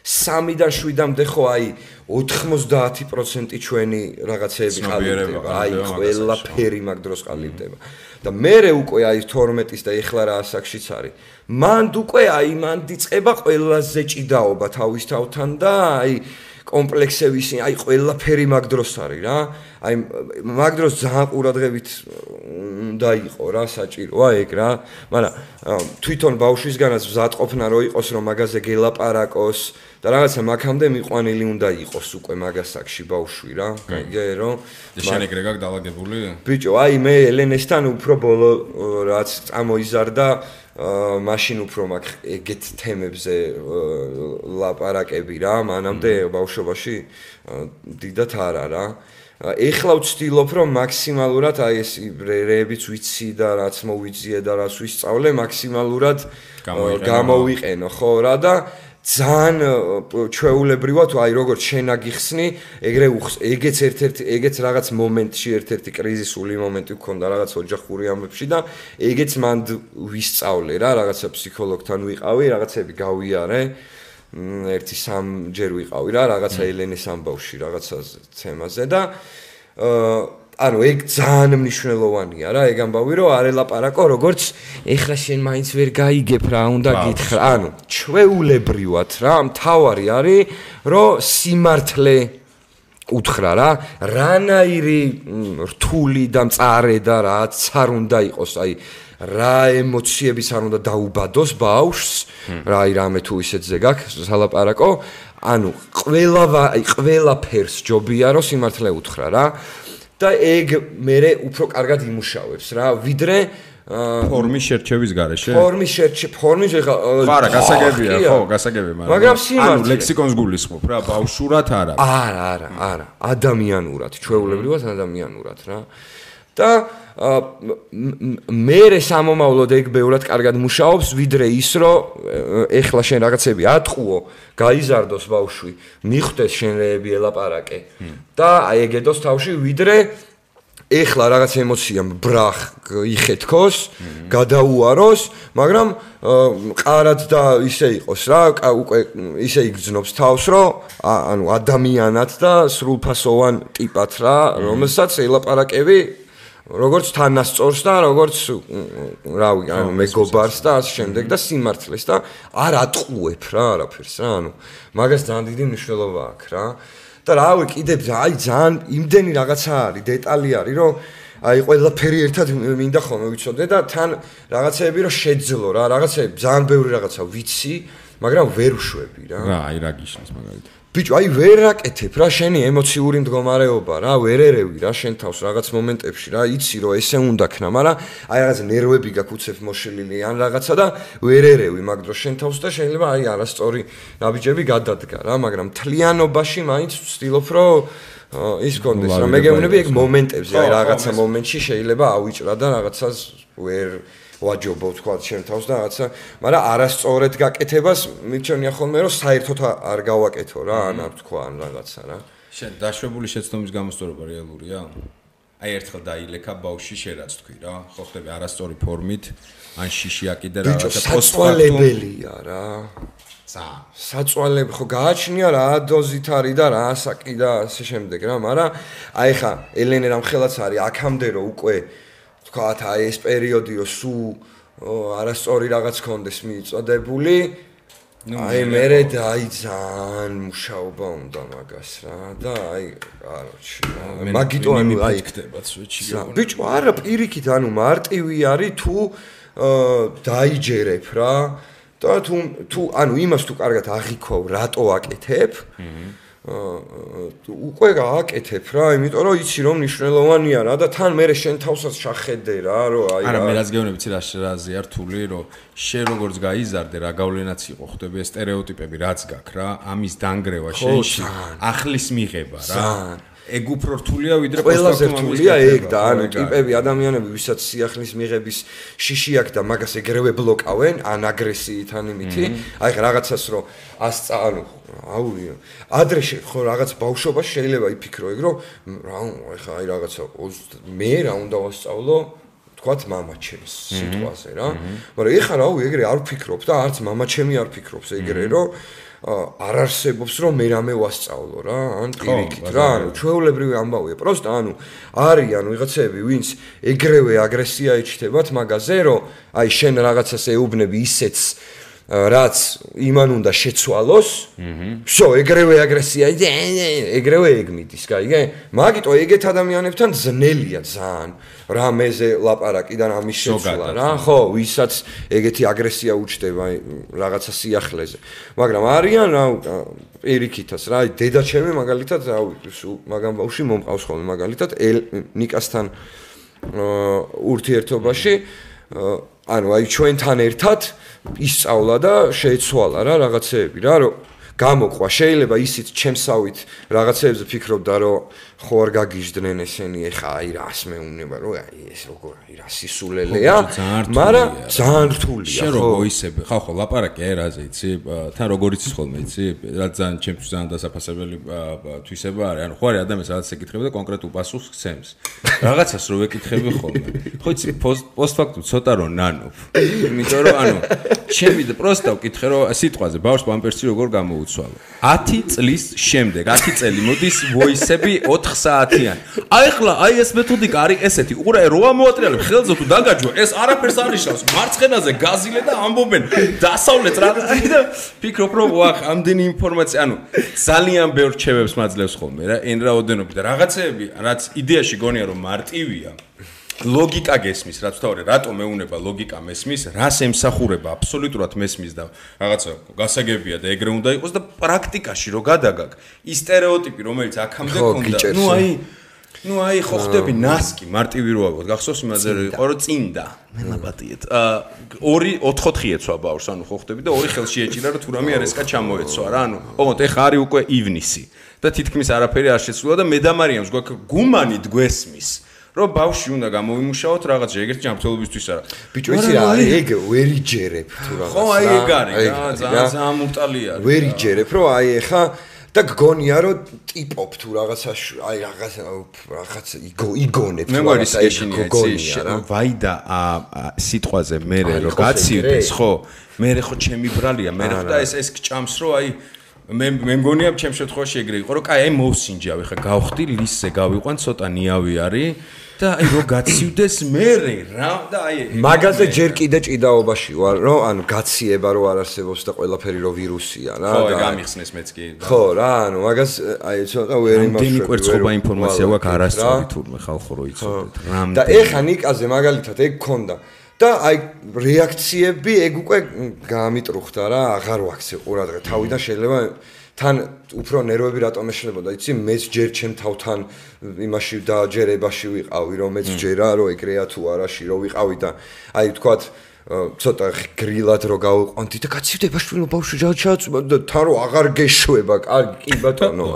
3-დან 7-მდე ხო აი 90% ჩვენი რაღაცეები ყალიბდება აი ყველაფერი მაგ დროს ყალიბდება და მე უკვე აი 12-ის და ეხლა რა ასაკშიც არის მანდ უკვე აი მან დიწყება ყველაზე ჭიდაობა თავის თავთან და აი კომპლექსების აი ყველაფერი მაგ დროს არის რა აი მაგ დროს ძალიან ყურადღებით უნდა იყო რა საჭიროა ეგ რა მაგრამ თვითონ ბავშვისგანაც მზადყოფნა რო იყოს რომ მაგაზე გელაპარაკოს და რაღაცა მაგამდე მიყვანილი უნდა იყოს უკვე მაგასაკში ბავშვი რა გაიგე რომ შენ ეგრე გაკ დაალაგებული ბიჭო აი მე ელენესთან უფრო ბოლო რაც წამოიზარდა მაშინ უფრო მაგ ეგეთ თემებზე ლაპარაკები რა მანამდე ბავშვობაში დიდათ არა რა ეხლა ვცდილობ რომ მაქსიმალურად აი ეს რეებიც ვიცი და რაც მოვიძიე და რაც ვისწავლე მაქსიმალურად გამოვიყენო ხო რა და ძალიან ჩვეულებრივად აი როგორც შენ აგიხსნი ეგრე ეგეც ერთ-ერთი ეგეც რაღაც მომენტში ერთ-ერთი კრიზისული მომენტი გქონდა რაღაც ოჯახური ამბებში და ეგეც მან ვისწავლე რა რაღაცა ფსიქოლოგთან ვიყავი რაღაცები გავიარე ერთი 3 ჯერ ვიყავი რა რაღაცა ელენეს ამბავში რაღაცა თემაზე და ანუ ეგ ძალიან მნიშვნელოვანია რა ეგ ამბავი რომ არ ელაპარაკო როგორც ეხლა შენ მაინც ვერ გაიგებ რა უნდა გითხრა ანუ ჩვეულებრივად რა მთავარი არის რომ სიმართლე უთხრა რა რანაირი რთული და მწარე და რაც არ უნდა იყოს აი რა ემოციებიც არ უნდა დაუბადოს ბავშვს, რა რამე თუ ისეთზე გაქვს სალაპარაკო, ანუ ყველაფერს ჯობია რომ სიმართლე უთხრა რა და ეგ მე უფრო კარგად იმუშავებს რა, ვიდრე ფორმის შერჩევის გარეშე? ფორმის ხარა, გასაგებია, ხო, გასაგებია, მაგრამ სიმართლე. ანუ ლექსიკონს გულისხმობ რა, ბავშვურად არა. არა, ადამიანურად, ჩვეულებრივად ადამიანურად რა. და მე სამომავლოდ ეგ ბევრად კარგად მუშაობს, ვიდრე ის, რომ ეხლა შენ რაღაცები ატყუო, გაიზარდოს ბავშვი, მიხვდეს შენ რეები ელაპარაკე და აეგედოს თავში, ვიდრე ეხლა რაღაც ემოცია ბრახ იხეთქოს, გადაუაროს, მაგრამ ყარად და ისე იყოს რა, უკვე ისე იგრძნობს თავს, რომ ანუ ადამიანად და სრულფასოვან ტიპად რა, რომელსაც ელაპარაკები როგორც თანასწორს და როგორც რავი, ანუ მეგობარს და ასე შემდეგ და სიმართლეს და არ ატყუებ რა არაფერს რა, ანუ მაგას ძალიან დიდი მნიშვნელობა აქვს რა. და რავი, კიდევ ძალიან იმდენი რაღაცა არის, დეტალი არის, რომ აი ყველაფერი ერთად მინდა ხოლმე ვიცოდე და თან რაღაცეები რომ შეძლო რა, რაღაცეები ძალიან ბევრი რაღაცა ვიცი, მაგრამ ვერ უშვები რა. რა, აი რა გიშნის მაგალითად. ბიჭო, აი ვერ აკეთებ რა შენი ემოციური მდგომარეობა რა, ვერ ერევი რა შენ თავს რაღაც მომენტებში რა, იცი რომ ესე უნდა ქნა, მაგრამ აი რაღაც ნერვები გაკუცებ მოშლილი ან რაღაცა და ვერ ერევი მაგ დროს შენ თავს და შეიძლება აი არასწორი ნაბიჯები გადადგა რა, მაგრამ თლიანობაში მაინც ვცდილობ რომ ის კონდეს რა, მე გეუბნები ეგ მომენტებზე, აი რაღაცა მომენტში შეიძლება ავიჭრა და რაღაცას ვერ ვაჯობო თქვა შენ თავს და რაღაცა, მაგრამ არასწორად გაკეთებას მიჩვენია ხოლმე რომ საერთოდ არ გავაკეთო რა, ან არ თქვა ან რაღაცა რა. შენ დაშვებული შეცდომის გამოსწორება რეალურია? აი ერთხელ დაილექა ბავშვი შერაც თქვი რა, ხო ხდები არასწორი ფორმით, ან შიში აკიდე რაღაცა საწვალებელია რა. საწვალები ხო გააჩნია რა დოზით არის და რა ასაკი და ასე შემდეგ რა, მაგრამ აი ხა ელენე რამ ხელაც არის აქამდე რომ უკვე თქვათ აი ეს პერიოდი რომ სულ არასწორი რაღაც კონდეს მიიწოდებული, აი მერე ძალიან მუშაობა უნდა მაგას რა და აი კაროჩი მაგიტო ანუ აი ხდება სვეჩი. ბიჭო არა პირიქით ანუ მარტივი არის თუ დაიჯერებ რა და თუ ანუ იმას თუ კარგად აღიქოვ რატო აკეთებ უკვე გააკეთებ რა, იმიტომ რომ იცი რომ მნიშვნელოვანია რა და თან მე შენ თავსაც შახედე რა, რომ აი არა მე რაც გეუბნები ცი რაზეა რთული, რომ შენ როგორც გაიზარდე რა გავლენაც იყო ხდები ეს სტერეოტიპები რაც გაქვს რა, ამის დანგრევა შენში, ახლის მიღება რა. ეგ უფრო რთულია ვიდრე ყველაზე რთულია ეგ და ანუ ტიპები ადამიანები ვისაც სიახლის მიღების შიში აქვს და მაგას ეგრევე ბლოკავენ ან აგრესიით ან იმითი აი ხა რაღაცას რომ ანუ აუ ადრე ხო რაღაც ბავშვობაში შეიძლება იფიქრო ეგ რომ რა ხა აი რაღაცა მე რა უნდა ვასწავლო თქვათ მამაჩემს სიტყვაზე რა მაგრამ ეხა რა ეგრე არ ვფიქრობ და არც მამაჩემი არ ფიქრობს ეგრე რომ არ არსებობს რომ მე რამე ვასწავლო რა ან პირიქით რა ანუ ჩვეულებრივი ამბავია პროსტა ანუ არიან ვიღაცები ვინც ეგრევე აგრესია იჩნდებათ მაგაზე რომ აი შენ რაღაცას ეუბნები ისეც რაც იმან უნდა შეცვალოს всё ეგრევე აგრესია ეგრევე ეგ მიდის გაიგე მაგიტო ეგეთ ადამიანებთან ძნელია ძალიან რამეზე ლაპარაკი და რამის შეცვლა რა ხო ვისაც ეგეთი აგრესია უჩდება რაღაცა სიახლეზე მაგრამ არიან რა პირიქითას რა დედაჩემი მაგალითად რა მაგამ ბავშვი მომყავს ხოლმე მაგალითად ნიკასთან ურთიერთობაში ანუ აი ჩვენთან ერთად ისწავლა და შეეცვალა რა რაღაცეები რა რომ გამოყვა შეიძლება ისიც ჩემსავით რაღაცეებზე ფიქრობდა რომ ხო არ გაგიჟდნენ ესენი ეხა აი რას მეუნება რომ აი ეს როგორ აი რა სისულელეა მაგრამ ძალიან რთულია შენ რო მოისები ხო ლაპარაკი აი რაზე იცი თან როგორ იცის ხოლმე იცი რა ძალიან ჩემთვის ძალიან დასაფასებელი თვისება არის ანუ ხო არის ადამიანს რაღაც ეკითხება და კონკრეტულ პასუხს გცემს რაღაცას რო ვეკითხები ხოლმე ხო იცი პოსტფაქტუმ ცოტა რო ნანობ იმიტომ რომ ანუ ჩემი და პროსტა ვკითხე რომ სიტყვაზე ბავშვს პამპერსი როგორ გამოუცვალო 10 წლის შემდეგ 10 წელი მოდის ვოისები 4 საათიან. აი ხლა აი ეს მეთოდიკა არის ესეთი. უყურე რო ამოატრიალებ ხელზე თუ დაგაჯვა ეს არაფერს არ ნიშნავს. მარცხენაზე გაზილე და ამბობენ დასავლეთ რა და ფიქრობ რომ ვახ ამდენი ინფორმაცია ანუ ძალიან ბევრ რჩევებს მაძლევს ხოლმე რა. ენრაოდენობით და რაღაცეები რაც იდეაში გონია რომ მარტივია. ლოგიკა გესმის, რაც თავი რატომ მეუნება ლოგიკა მესმის, რას ემსახურება აბსოლუტურად მესმის და რაღაცა გასაგებია და ეგრე უნდა იყოს და პრაქტიკაში რო გადაგაგ ის სტერეოტიპი რომელიც აქამდე ქონდა ну აი ხო ხდები ნასკი მარტივი რო ავიღოთ გახსოვს იმაზე იყო რომ წინდა მელაპატიეთ 2-4 ეცვა ბავშვს ანუ ხო ხდები და 2 ხელში ეჭირა რომ თუ რამე არესკა ჩამოეცვა რა ანუ ოღონდ ეხა არის უკვე ივნისი და თითქმის არაფერი არ შეცვლა და მე და მარიამს გვაქვს გუმანი გვესმის რომ ბავშვი უნდა გამოვიმუშაოთ რაღაც ეგრეთ ჯანმრთელობისთვის არა ბიჭო იცი რა ეგ ვერ იჯერებ თუ რაღაც ხო აი ეგ არის ძალიან მურტალია ვერ იჯერებ რომ აი ეხა და გგონია რომ ტიპობ თუ რაღაცა აი რაღაც იგონებ მე გვარი სეშინია რა ვაი და სიტყვაზე მე რო გაცივდეს ხო მე ხო ჩემი ბრალია მე ხო და ეს გჭამს რომ აი მე მგონია ჩემ შემთხვევაში ეგრე იყო რომ კაი აი მოვსინჯავ ხა გავხდი ლისზე გავიყვან ცოტა ნიავი არის და აი რო გაცივდეს მე რა და აი მაგაზე ჯერ კიდე ჭიდაობაში ვარ რომ ანუ გაციება რო არ არსებობს და ყველაფერი რო ვირუსია რა და ხო გამიხსნეს მეც კი ხო რა ანუ მაგას აი ცოტა ვერ იმაშვები რამდენი კვერცხობა ინფორმაცია გვაქვს არასწორი თურმე ხალხო რო იცოდეთ და ეხა ნიკაზე მაგალითად ეგ ქონდა და აი რეაქციები ეგ უკვე გამიტრუხდა რა აღარ ვაქცე ყურადღება თავიდან შეიძლება თან უფრო ნერვები რატომ ეშლებოდა იცი მეც ჯერ ჩემ თავთან იმაში დაჯერებაში ვიყავი რომ მეც ჯერა რომ ეგრეა თუ არაში რომ ვიყავი და აი ვთქვათ ცოტა გრილად რო გავიყვანდი და გაცივდება შვილო ბავშვი ჩააწვა და თან რო აღარ გეშვება კარგი კი ბატონო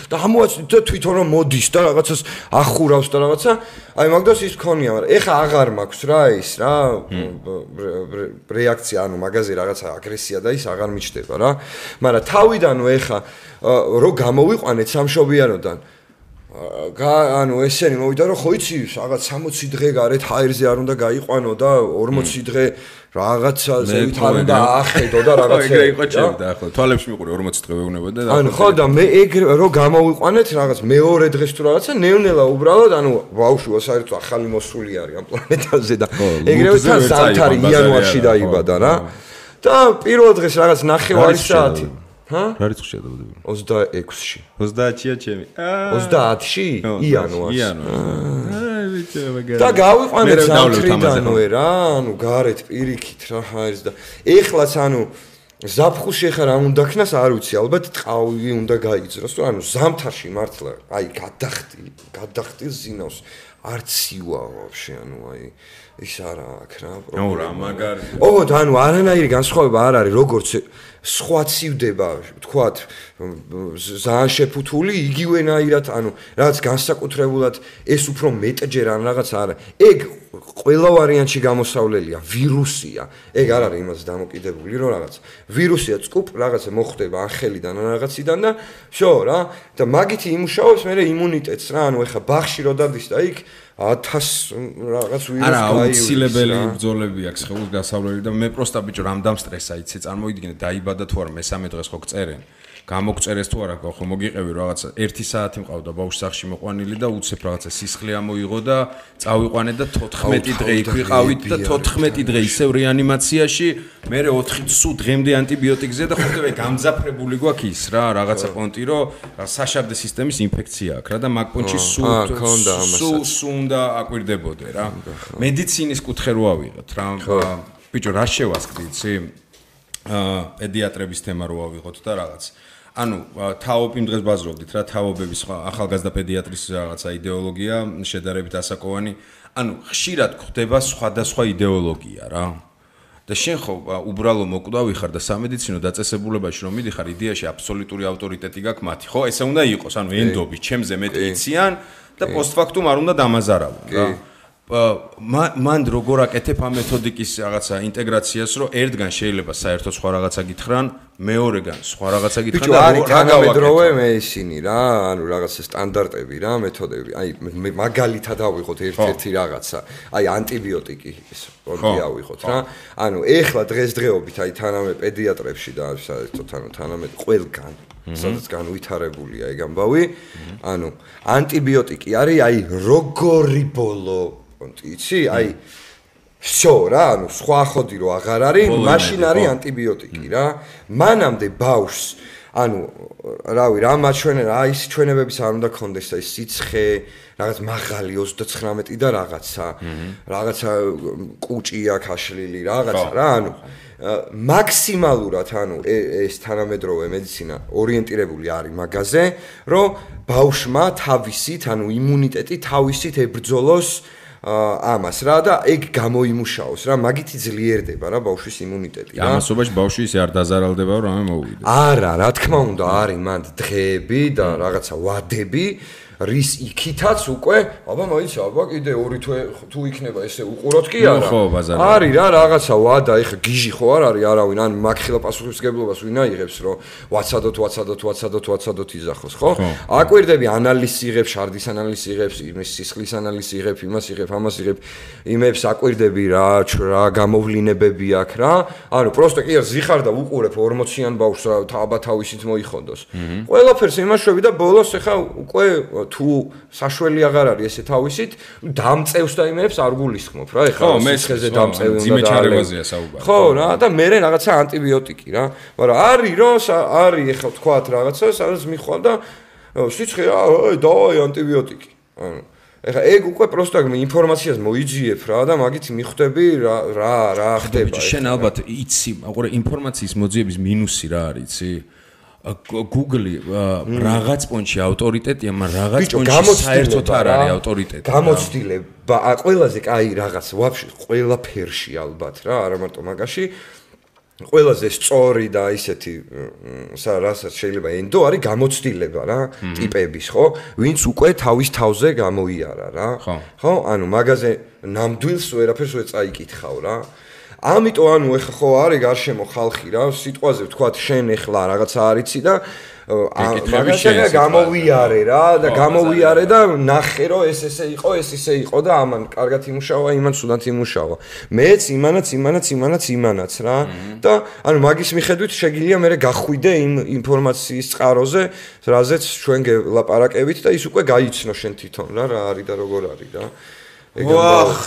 და ამოაცდით და თვითონ რომ მოდის და რაღაცას ახურავს და რაღაცა აი მაგდას ის ქონია მაგრამ ეხა აღარ მაქვს რა ის რა რეაქცია ანუ მაგაზე რაღაცა აგრესია და ის აღარ მიჩნდება რა მაგრამ თავიდანო ეხა რო გამოვიყვანეთ სამშობიაროდან ანუ ესენი მოვიდა რომ ხო იცი რაღაც 60 დღე გარეთ ჰაერზე არ უნდა გაიყვანო და 40 დღე რაღაცაზე ვით არ უნდა ახედო და რაღაცა ეგრე იყო ჩემი და ხო თვალებში მიყური 40 დღე ვეუბნებოდა და ანუ ხო და მე ეგ რო გამოვიყვანეთ რაღაც მეორე დღეს თუ რაღაცა ნევნელა უბრალოდ ანუ ბავშვი საერთოდ ახალი მოსული არის ამ პლანეტაზე და ეგრევე თან ზამთარი იანვარში დაიბადა რა და პირველ დღეს რაღაც 9 საათი ჰა? რა რიცხვია დაბადებული? 26-ში. 30-ია ჩემი. 30-ში? იანვარს. აი ვიცი მაგარი. და გავიყვანეთ სამტრიდანვე რა, ანუ გარეთ პირიქით რა ჰაერს და ეხლაც ანუ ზაფხულში ახლა რა უნდა ქნას არ ვიცი, ალბათ ტყავი უნდა გაიძროს, თუ ანუ ზამთარში მართლა აი გადახტილ ზინავს არც ივა ვაფშე ანუ აი ის არა აქ რა პრობლემა. ო რა მაგარი. ოღონდ ანუ არანაირი განსხვავება არ არის როგორც სხვა ცივდება, ვთქვათ, ძალიან შეფუთული, იგივენაირად, ანუ რაღაც განსაკუთრებულად ეს უფრო მეტჯერ ან რაღაც არა. ეგ ყველა ვარიანტში გამოსავლელია, ვირუსია. ეგ არ არის იმას დამოკიდებული, რომ რაღაც ვირუსია წყუპ, რაღაცა მოხდება ახელიდან ან რაღაციდან და შო რა, და მაგითი იმუშავებს მე იმუნიტეტს რა, ანუ ეხა ბაღში რო დადის და იქ 1000 რაღაც ვირუსი არა აუცილებელი ბრძოლები აქვს ხელს გასავლელი და მე პროსტა ბიჭო რამ სტრესა იცი წარმოიდგინე დაიბადა თუ არა მესამე დღეს ხო გწერენ გამოგწერეს თუ არა ხო მოგიყევი რაღაცა 1 საათი მყავდა ბავშვს სახში მოყვანილი და უცებ რაღაცა სისხლი ამოიღო და წავიყვანე და 14 დღე იქ ვიყავით და 14 დღე ისევ რეანიმაციაში მე 4 სულ დღემდე ანტიბიოტიკზე და ხოთები გამძაფრებული გვაქვს ის რა რაღაცა პონტი რომ საშაბდე სისტემის ინფექცია აქვს რა და მაგ პონტში სულ უნდა აკვირდებოდე რა მედიცინის კუთხე რო ავიღოთ რა ბიჭო რა შევასკდი იცი პედიატრების თემა რო ავიღოთ და რაღაც ანუ თაობ იმ დღეს ბაზრობდით რა თაობების ახალგაზრდა პედიატრის რაღაცა იდეოლოგია შედარებით ასაკოვანი ანუ ხშირად გვხდება სხვადასხვა იდეოლოგია რა და შენ ხო უბრალო მოკვდავი ხარ და სამედიცინო დაწესებულებაში რომ მიდიხარ იდეაში აბსოლუტური ავტორიტეტი გაქვს მათი ხო ესე უნდა იყოს ანუ ენდობი ჩემზე მეტი იციან და პოსტფაქტუმ არ უნდა დამაზარავო რა მან როგორ აკეთებ ამ მეთოდიკის რაღაცა ინტეგრაციას რომ ერთგან შეიძლება საერთოდ სხვა რაღაცა გითხრან მეორეგან სხვა რაღაცა გითხრან და რა გავედროვე მე ისინი რა ანუ რაღაცა სტანდარტები რა მეთოდები აი მაგალითად ავიღოთ ერთ-ერთი რაღაცა აი ანტიბიოტიკი ეს პონტი ავიღოთ რა ანუ ეხლა დღესდღეობით აი თანამე პედიატრებში და საერთოდ ანუ თანამე ყველგან სადაც განვითარებულია ეგ ამბავი ანუ ანტიბიოტიკი არის აი როგორი ბოლო იცი აი შო რა ანუ სხვა ხოდი რო აღარ არის მაშინ არის ანტიბიოტიკი რა მანამდე ბავშვს ანუ რავი რა მაჩვენე რა ის ჩვენებებიც არ უნდა გქონდეს და ის სიცხე რაღაც მაღალი 39 და რაღაცა კუჭი აქვს აშლილი რაღაცა რა ანუ მაქსიმალურად ანუ ეს თანამედროვე მედიცინა ორიენტირებული არის მაგაზე რომ ბავშვმა თავისით ანუ იმუნიტეტი თავისით ებრძოლოს ამას რა და ეგ გამოიმუშაოს რა მაგითი ძლიერდება რა ბავშვის იმუნიტეტი რა ამასობაში ბავშვი ისე არ დაზარალდება რომ ამე მოვიდეს არა რა თქმა უნდა არის მანდ დღეები და რაღაცა ვადები რის იქითაც უკვე აბა მაინც აბა კიდე 2 თვე თუ იქნება ესე უყუროთ კი არა ხო ბაზარი არის რა რაღაცა ვადა ეხა გიჟი ხო არ არის არავინ ან მაგხილა პასუხისმგებლობას ვინ აიღებს რომ ვაცადოთ იზახოს ხო აკვირდები ანალიზს იღებს შარდის ანალიზს იღებს იმის სისხლის ανალიზს იღებ იმას იღებ ამას იღებ იმებს აკვირდები რა გამოვლინებები აქვს რა ანუ პროსტო კი არ ზიხარ და უყურებ 40-იან ბავშვს რა აბა თავისით მოიხოდოს ყველაფერს იმაშვები და ბოლოს ეხა უკვე თუ საშველი აღარ არის ესე თავისით დამწევს და იმებს არ გულისხმობ რა ეხლა სისხლზე დამწევი უნდა ძიმეჩარებაზეა საუბარი ხო რა და მე რაღაცა ანტიბიოტიკი რა მაგრამ არის რომ არის ეხლა თქვათ რაღაცა სადაც მიხვალ და სიცხე დავაი ანტიბიოტიკი ანუ ეხლა ეგ უკვე პროსტო ინფორმაციას მოიძიებ რა და მაგით მიხვდები რა ხდება შენ ალბათ იცი აყურე ინფორმაციის მოძიების მინუსი რა არის იცი Google რაღაც პონჩი ავტორიტეტია, მაგრამ რაღაც პონჩი საერთოდ არ არის ავტორიტეტი. გამოცდილება, ყველაზე კაი რაღაც, ვაფშე ყველაფერში ალბათ რა, არა მარტო მაგაში. ყველაზე სწორი და ისეთი რასაც შეიძლება ენდო არის გამოცდილება რა, ტიპების, ხო? ვინც უკვე თავის თავზე გამოიარა რა. ხო? ანუ მაგაზე ნამდვილს ვერაფერს ვერ წაიკითხავ რა. ამიტომ ანუ ეხა ხო არის გარშემო ხალხი რა სიტყვაზე ვთქვათ შენ ეხლა რაღაცა არიცი და მაგაშია გამოვიარე რა და გამოვიარე და ნახე რომ ეს ესე იყო ეს ისე იყო და ამან კარგად იმუშავა იმან სულად იმუშავა მეც იმანაც რა და ანუ მაგის მიხედვით შეგიძლია მე გახვიდე იმ ინფორმაციის წყაროზე რაზეც ჩვენ გელაპარაკებით და ის უკვე გაიცნო შენ თვითონ რა არის და როგორ არის რა ვახ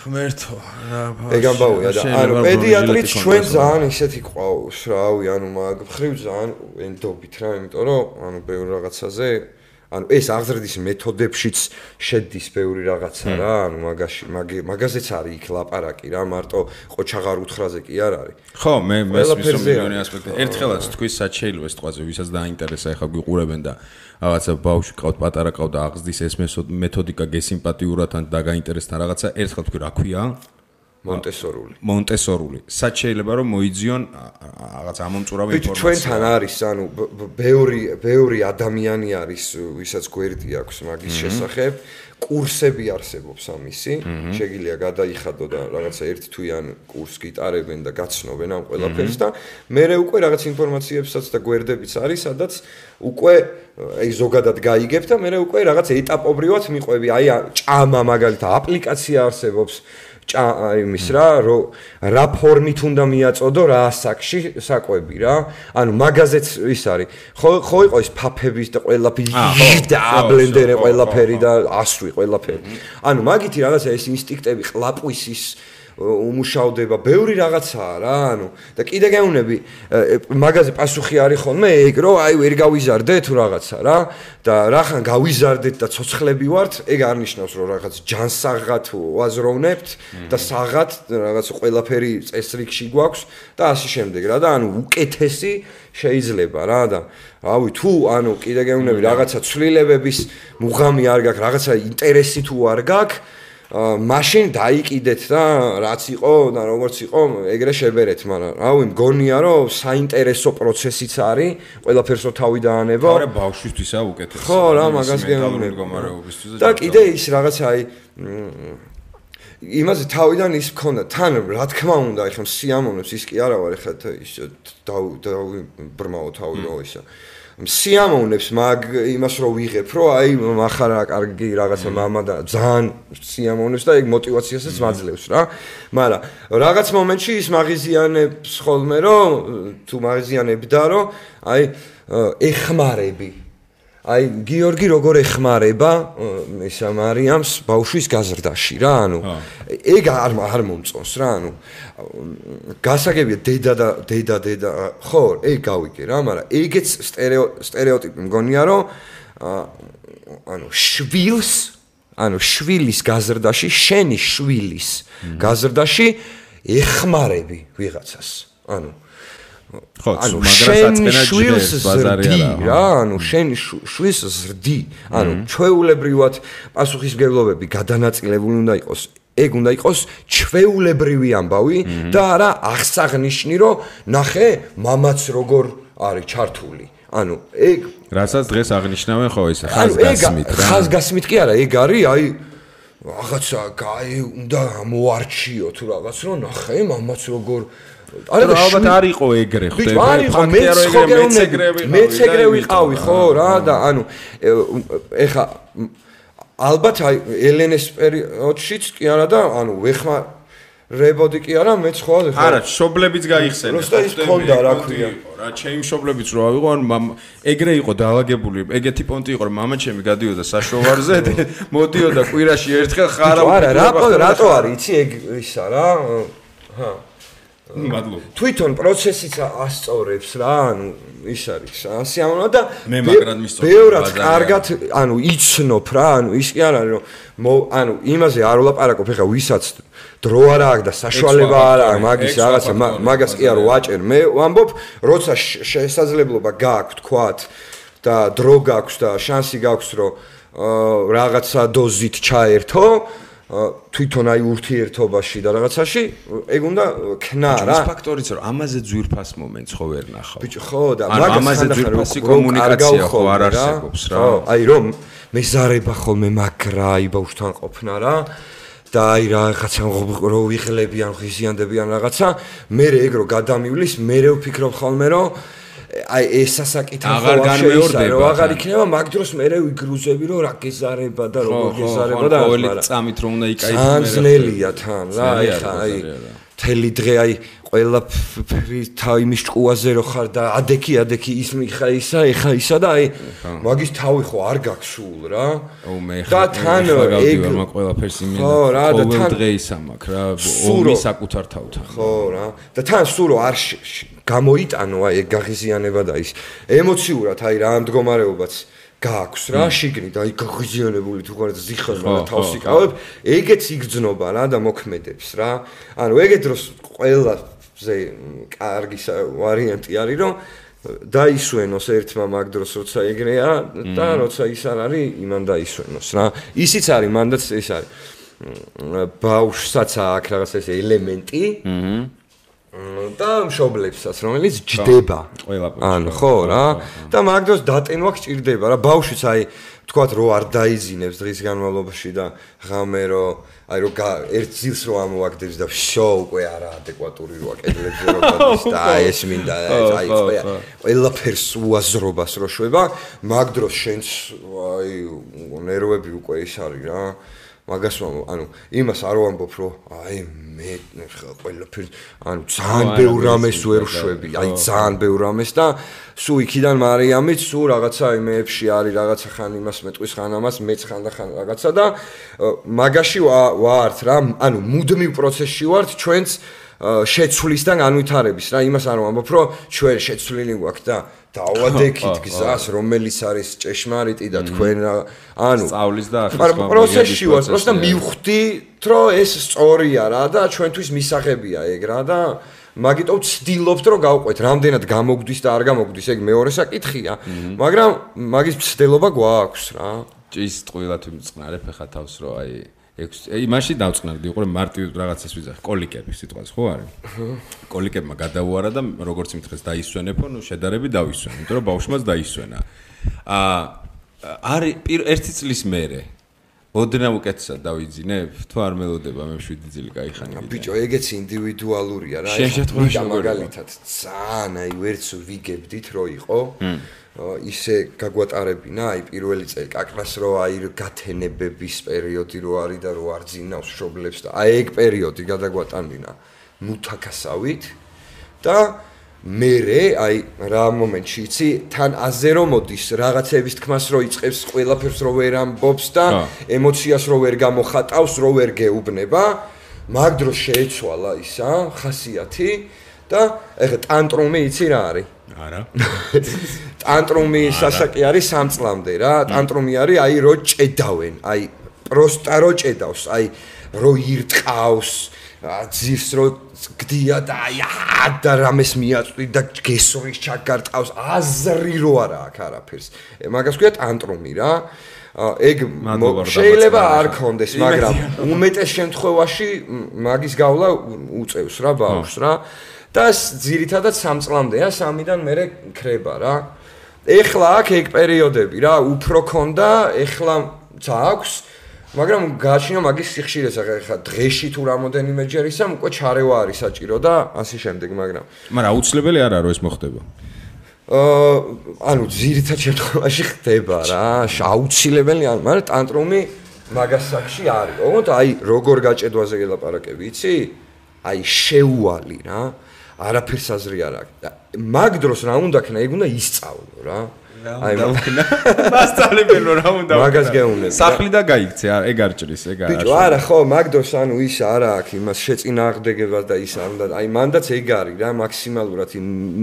ღმერთო რა ეგ ამბავია და ანუ პედიატრიც ჩვენ ძალიან ისეთი ყავს რავი ანუ მაგ ხრივ ძალიან ენდობით რა იმიტომ რომ ანუ ბევრი რაღაცაზე ანუ ეს აღზრდის მეთოდებშიც შედის ბევრი რაღაცა რა ანუ მაგაზეც არის იქ ლაპარაკი რა მარტო ყოჩაღარ უთხრაზე კი არ არის ხო მე მესმის მილიონი ასპექტი ერთხელაც თქვი საჩეილო ეს თყვაზე ვისაც დაინტერესა ეხლა გვიყურებენ და რაღაცა ბავშვი ყავთ პატარა ყავთ და აღზრდის ეს მეთოდიკა გესიმპათიურად ან დაგაინტერესთან რაღაცა ერთხელ თქვი რა ქვია მონტესორული სად შეიძლება რომ მოიძიონ რაღაც ამომწურავი ინფორმაცია ჩვენთან არის ანუ ბევრი ადამიანი არის ვისაც გვერდი აქვს მაგის შესახებ კურსები არსებობს ამისი შეგიძლია გადაიხადო და რაღაცა ერთ თვიან კურს გიტარებენ და გაცნობენ ამ ყველაფერს და მე უკვე რაღაც ინფორმაციებსაც და გვერდებიც არის სადაც უკვე აი ზოგადად გაიგებ და მე უკვე რაღაც ეტაპობრივად მიყვები აი ჭამა მაგალითად აპლიკაცია არსებობს იმის რა ფორმით უნდა მიაწოდო რა ასაკში საკვები რა ანუ მაგაზეც ის არის ხო იყო ის ფაფების და ყველაფერი და ბლენდერი ყველაფერი და ასვი ყველაფერი ანუ მაგითი რაღაცა ეს ინსტინქტები ყლაპვის ის უმუშავდება ბევრი რაღაცაა რა ანუ და კიდე გეუნები მაგაზე პასუხი არის ხოლმე ეგ რომ აი ვერ გავიზარდე თუ რაღაცა რა და რახან გავიზარდეთ და ცოცხლები ვართ ეგ არ ნიშნავს რომ რაღაც ჯანსაღად ვაზროვნებთ და საღად რაღაც ყველაფერი წესრიგში გვაქვს და ასე შემდეგ რა და ანუ უკეთესი შეიძლება რა და რავი თუ ანუ კიდე გეუნები რაღაცა ცვლილებების მუღამი არ გაქვს რაღაცა ინტერესი თუ არ გაქვს მაშინ დაიკიდეთ და რაც იყო და როგორც იყო ეგრე შებერეთ მაგრამ რავი მგონია რომ საინტერესო პროცესიც არის ყველაფერსო თავი დაანება არა ბავშვისთვისა უკეთესი ხო რა მაგას გეუბნები და კიდე ის რაღაცა აი იმაზე თავიდან ის მქონდა თან რა თქმა უნდა ეხლა სიამოვნებს ის კი არა ვარ ეხლა ის ბრმაო თავი რო ისა სიამოვნებს მაგ იმას რო ვიღებ რომ აი מחარა კარგი რაღაცა მამა და ძალიან სიამოვნებს და ეგ мотиваციასაც მაძლევს რა მაგრამ რაღაც მომენტში ის მაღიზიანებს ხოლმე რომ თუ მაღიზიანებდა რომ აი ეხმარები აი გიორგი როგორ ეხმარება ისა მარიამს ბავშვის გაზრდაში რა ანუ ეგ არ მომწონს რა ანუ გასაგებია დედა ხო ეგ გავიგე რა მაგრამ ეგეც სტერეოტიპი მგონია რომ ანუ შვილის გაზრდაში შენი შვილის გაზრდაში ეხმარები ვიღაცას ანუ ხო მაგრამ შვილს ზრდი რა ანუ შენ შვილს ზრდი ანუ ჩვეულებრივად პასუხისმგებლობები გადანაწილებული უნდა იყოს ეგ უნდა იყოს ჩვეულებრივი ამბავი და არა აღსაღნიშნი რომ ნახე მამაც როგორ არის ჩართული ანუ ეგ რასაც დღეს აღნიშნავენ ხო ეს ხაზგასმით რა ხაზგასმით კი არა ეგ არის აი რაღაცა უნდა მოარჩიო თუ რაღაც რომ ნახე მამაც როგორ არა ალბათ არ იყო ეგრე ხდება ფაქტია რომ მეც ეგრე ვიყავი ხო რა და ანუ ეხა ალბათ აი ელენეს პერიოდშიც კი არა და ანუ ვეხმარებოდი კი არა მეც ხო არა შობლებიც გაიხსენე როცა ის ქონდა რა ქვია რა ჩემი შობლებიც რო ავიღო ანუ ეგრე იყო დაალაგებული ეგეთი პონტი იყო რომ მამა ჩემი გადიოდა საშოვარზე მოდიოდა კვირაში ერთხელ ხარა არა რატო არის იცი ეგ ისა რა ჰა მადლობა თვითონ პროცესიც ასწორებს რა ანუ ის არის სიამოვნო და მე მაგრად მისწორებ ბევრად კარგად ანუ იცნობ რა ანუ ის კი არ არის რომ ანუ იმაზე არ ვლაპარაკობ ეხა ვისაც დრო არ აქვს და საშუალება არ აქვს მაგის რაღაცა მაგას კი არ ვაჭერ მე ვამბობ როცა შესაძლებლობა გააქვს თქვათ და დრო გაქვს და შანსი გაქვს რომ რაღაცა დოზით ჩაერთო თვითონ აი ურთიერთობაში და რაღაცაში ეგ უნდა ქნა რა ის ფაქტორიც რომ ამაზე ძვირფას მომენტს ხო ვერ ნახავ ბიჭო ხო და ამაზე ძვირფასი კომუნიკაცია ხო არ არსებობს რა აი რომ მეზარება ხოლმე მაგრა აი ბავშვთან ყოფნა რა და აი რაღაცა რო ვიღლებიან ხიზიანდებიან რაღაცა მე ეგ რო გადამივლის მე ვფიქრობ ხოლმე რომ აი ეს სასაკითხი აღარ განმეორდება რომ აღარ იქნება მაგ დროს მე ვიგრუზები რომ რა გეზარება და როგორ გეზარება და ყოველი წამით რომ უნდა იკაითო მე ძნელია თან რა ეხა აი თელი დღე აი ყველაფერი თავის ჭკუაზე რო ხარ და ადექი ის მიხა ისა ეხა ისა და აი მაგის თავი ხო არ გაქვს სულ რა და თან ეგ მაგ ყველაფერს იმენა ყოველ დღე ისა მაქვს რა ომი საკუთარ თავთან ხო რა და თან სულ რო არ გამოიტანო აი ეგ გაღიზიანება და ის ემოციურად აი რა ამ მდგომარეობაც გააქვს რა შიგნით აი გაღიზიანებული თუ ხარ ზიხარმა და თავს იკავებ ეგეც იგრძნობა რა და მოქმედებს რა ანუ ეგეთ დროს ყველაზე კარგი ვარიანტი არის რომ დაისვენოს ერთმა მაგ დროს როცა ეგრეა და როცა ის არ არის იმან დაისვენოს რა ისიც არის მანდაც ეს არის ბავშვსაც აქვს რაღაც ეს ელემენტი და მშობლებსაც რომელიც ჯდება ანუ ხო რა და მაგ დროს დატენვა გჭირდება რა ბავშვიც აი თქვათ რო არ დაიძინებს დღის განმავლობაში და ღამე რო აი რო ერთ ძილს რო ამოაგდებს და შო უკვე არა ადეკვატური როა კედლებზე რო გადის და ეს მინდა აი ყველაფერს უაზრობას რო შვება მაგ დროს შენს აი ნერვები უკვე ის არის რა მაგას ანუ იმას არ ვამბობ რომ აი მე ყველაფერი ანუ ძალიან ბევრ რამეს ვერ შვები აი ძალიან ბევრ რამეს და სულ იქიდან მარიამიც სულ რაღაცა იმეებში არის რაღაცა ხან იმას მეტყვის ხან ამას მეც ხან და ხან რაღაცა და მაგაში ვართ რა ანუ მუდმივ პროცესში ვართ ჩვენც შეცვლისთან განვითარების რა იმას არ ვამბობ რომ ჩვენ შეცვლილი გვაქვს და დავადექით გზას რომელიც არის ჭეშმარიტი და თქვენ ანუ სწავლის და პროცესში ვარ просто მივხვდით რომ ეს სწორია რა და ჩვენთვის მისაღებია ეგ რა და მაგიტო ვცდილობთ რომ გავყვეთ რამდენად გამოგვდის და არ გამოგვდის ეგ მეორე საკითხია მაგრამ მაგის მცდელობა გვაქვს რა ჭის ტყუილად ვიმწყნარებ ხა თავს რომ აი იმაში დავწყნარდი უყურე მარტივ რაღაცას ვიზახ კოლიკები სიტყვას ხო არის კოლიკებმა გადაუარა და როგორც მითხრეს დაისვენებო ნუ შედარები დავისვენე იმიტომ რომ ბავშვმაც დაისვენა არის ერთი წლის მერე ოდნავ უკეთესად დავიძინებ თუ არ მელოდება მე 7 წელი გაიხანე ბიჭო ეგეც ინდივიდუალურია რა შენ მაგალითად ძალიან აი ვერც ვიგებდით რო იყო ისე გაგვატარებინა აი პირველი წელი კაკრას რო აი გათენებების პერიოდი რო არის და რო არ ძინავს მშობლებს და აი ეგ პერიოდი გადაგვატანინა მუთაკასავით და მერე აი რა მომენტში იცი თან აზე რომ მოდის რაღაცების თქმას რო იწყებს ყველაფერს რო ვერ ამბობს და ემოციას რო ვერ გამოხატავს რო ვერ გეუბნება მაგ დროს შეეცვალა ისა ხასიათი და ეხა ტანტრუმი იცი რა არის არა ტანტრუმი სასაკი არის 3 წლამდე რა ტანტრუმი არის აი რო ჭედავენ აი პროსტა რო ჭედავს აი რო ირტყავს ძირს რო გდია და აი და რამეს მიაწვდი და გესურის ჩაგარტყავს აზრი რო არა აქ არაფერს მაგას ქვია ტანტრუმი რა ეგ შეიძლება არ კონდეს მაგრამ უმეტეს შემთხვევაში მაგის გავლა უწევს რა ბავშვს რა და ძირითადად 3 წლამდეა 3-დან მერე ქრება რა ეხლა აქ ეგ პერიოდები რა უფრო ქონდა ეხლა აქვს მაგრამ გააჩნია მაგის სიხშირეს ახლა დღეში თუ რამოდენიმეჯერ ისა უკვე ჩარევა არის საჭირო და ასე შემდეგ მაგრამ აუცილებელი არ არის რომ ეს მოხდება ანუ ძირითად შემთხვევაში ხდება რა აუცილებელი არ მაგრამ ტანტრუმი მაგას საკში არის ოღონდ აი როგორ გაჭედვაზე გელაპარაკები იცი აი შეუვალი რა არაფერს აზრი არ აქვს მაგ დროს რა უნდა ქნა ეგ უნდა ისწავლო რა აი მასწავლებელო რა უნდა მაგას გეუბნები სახლი და გაიქცე ეგ არ ჭრის ეგ არ ბიჭო არა ხო მაგ დროს ანუ ის არა აქვს იმას შეწინააღმდეგებას და ის არ უნდა აი მანდაც ეგ არის რა მაქსიმალურად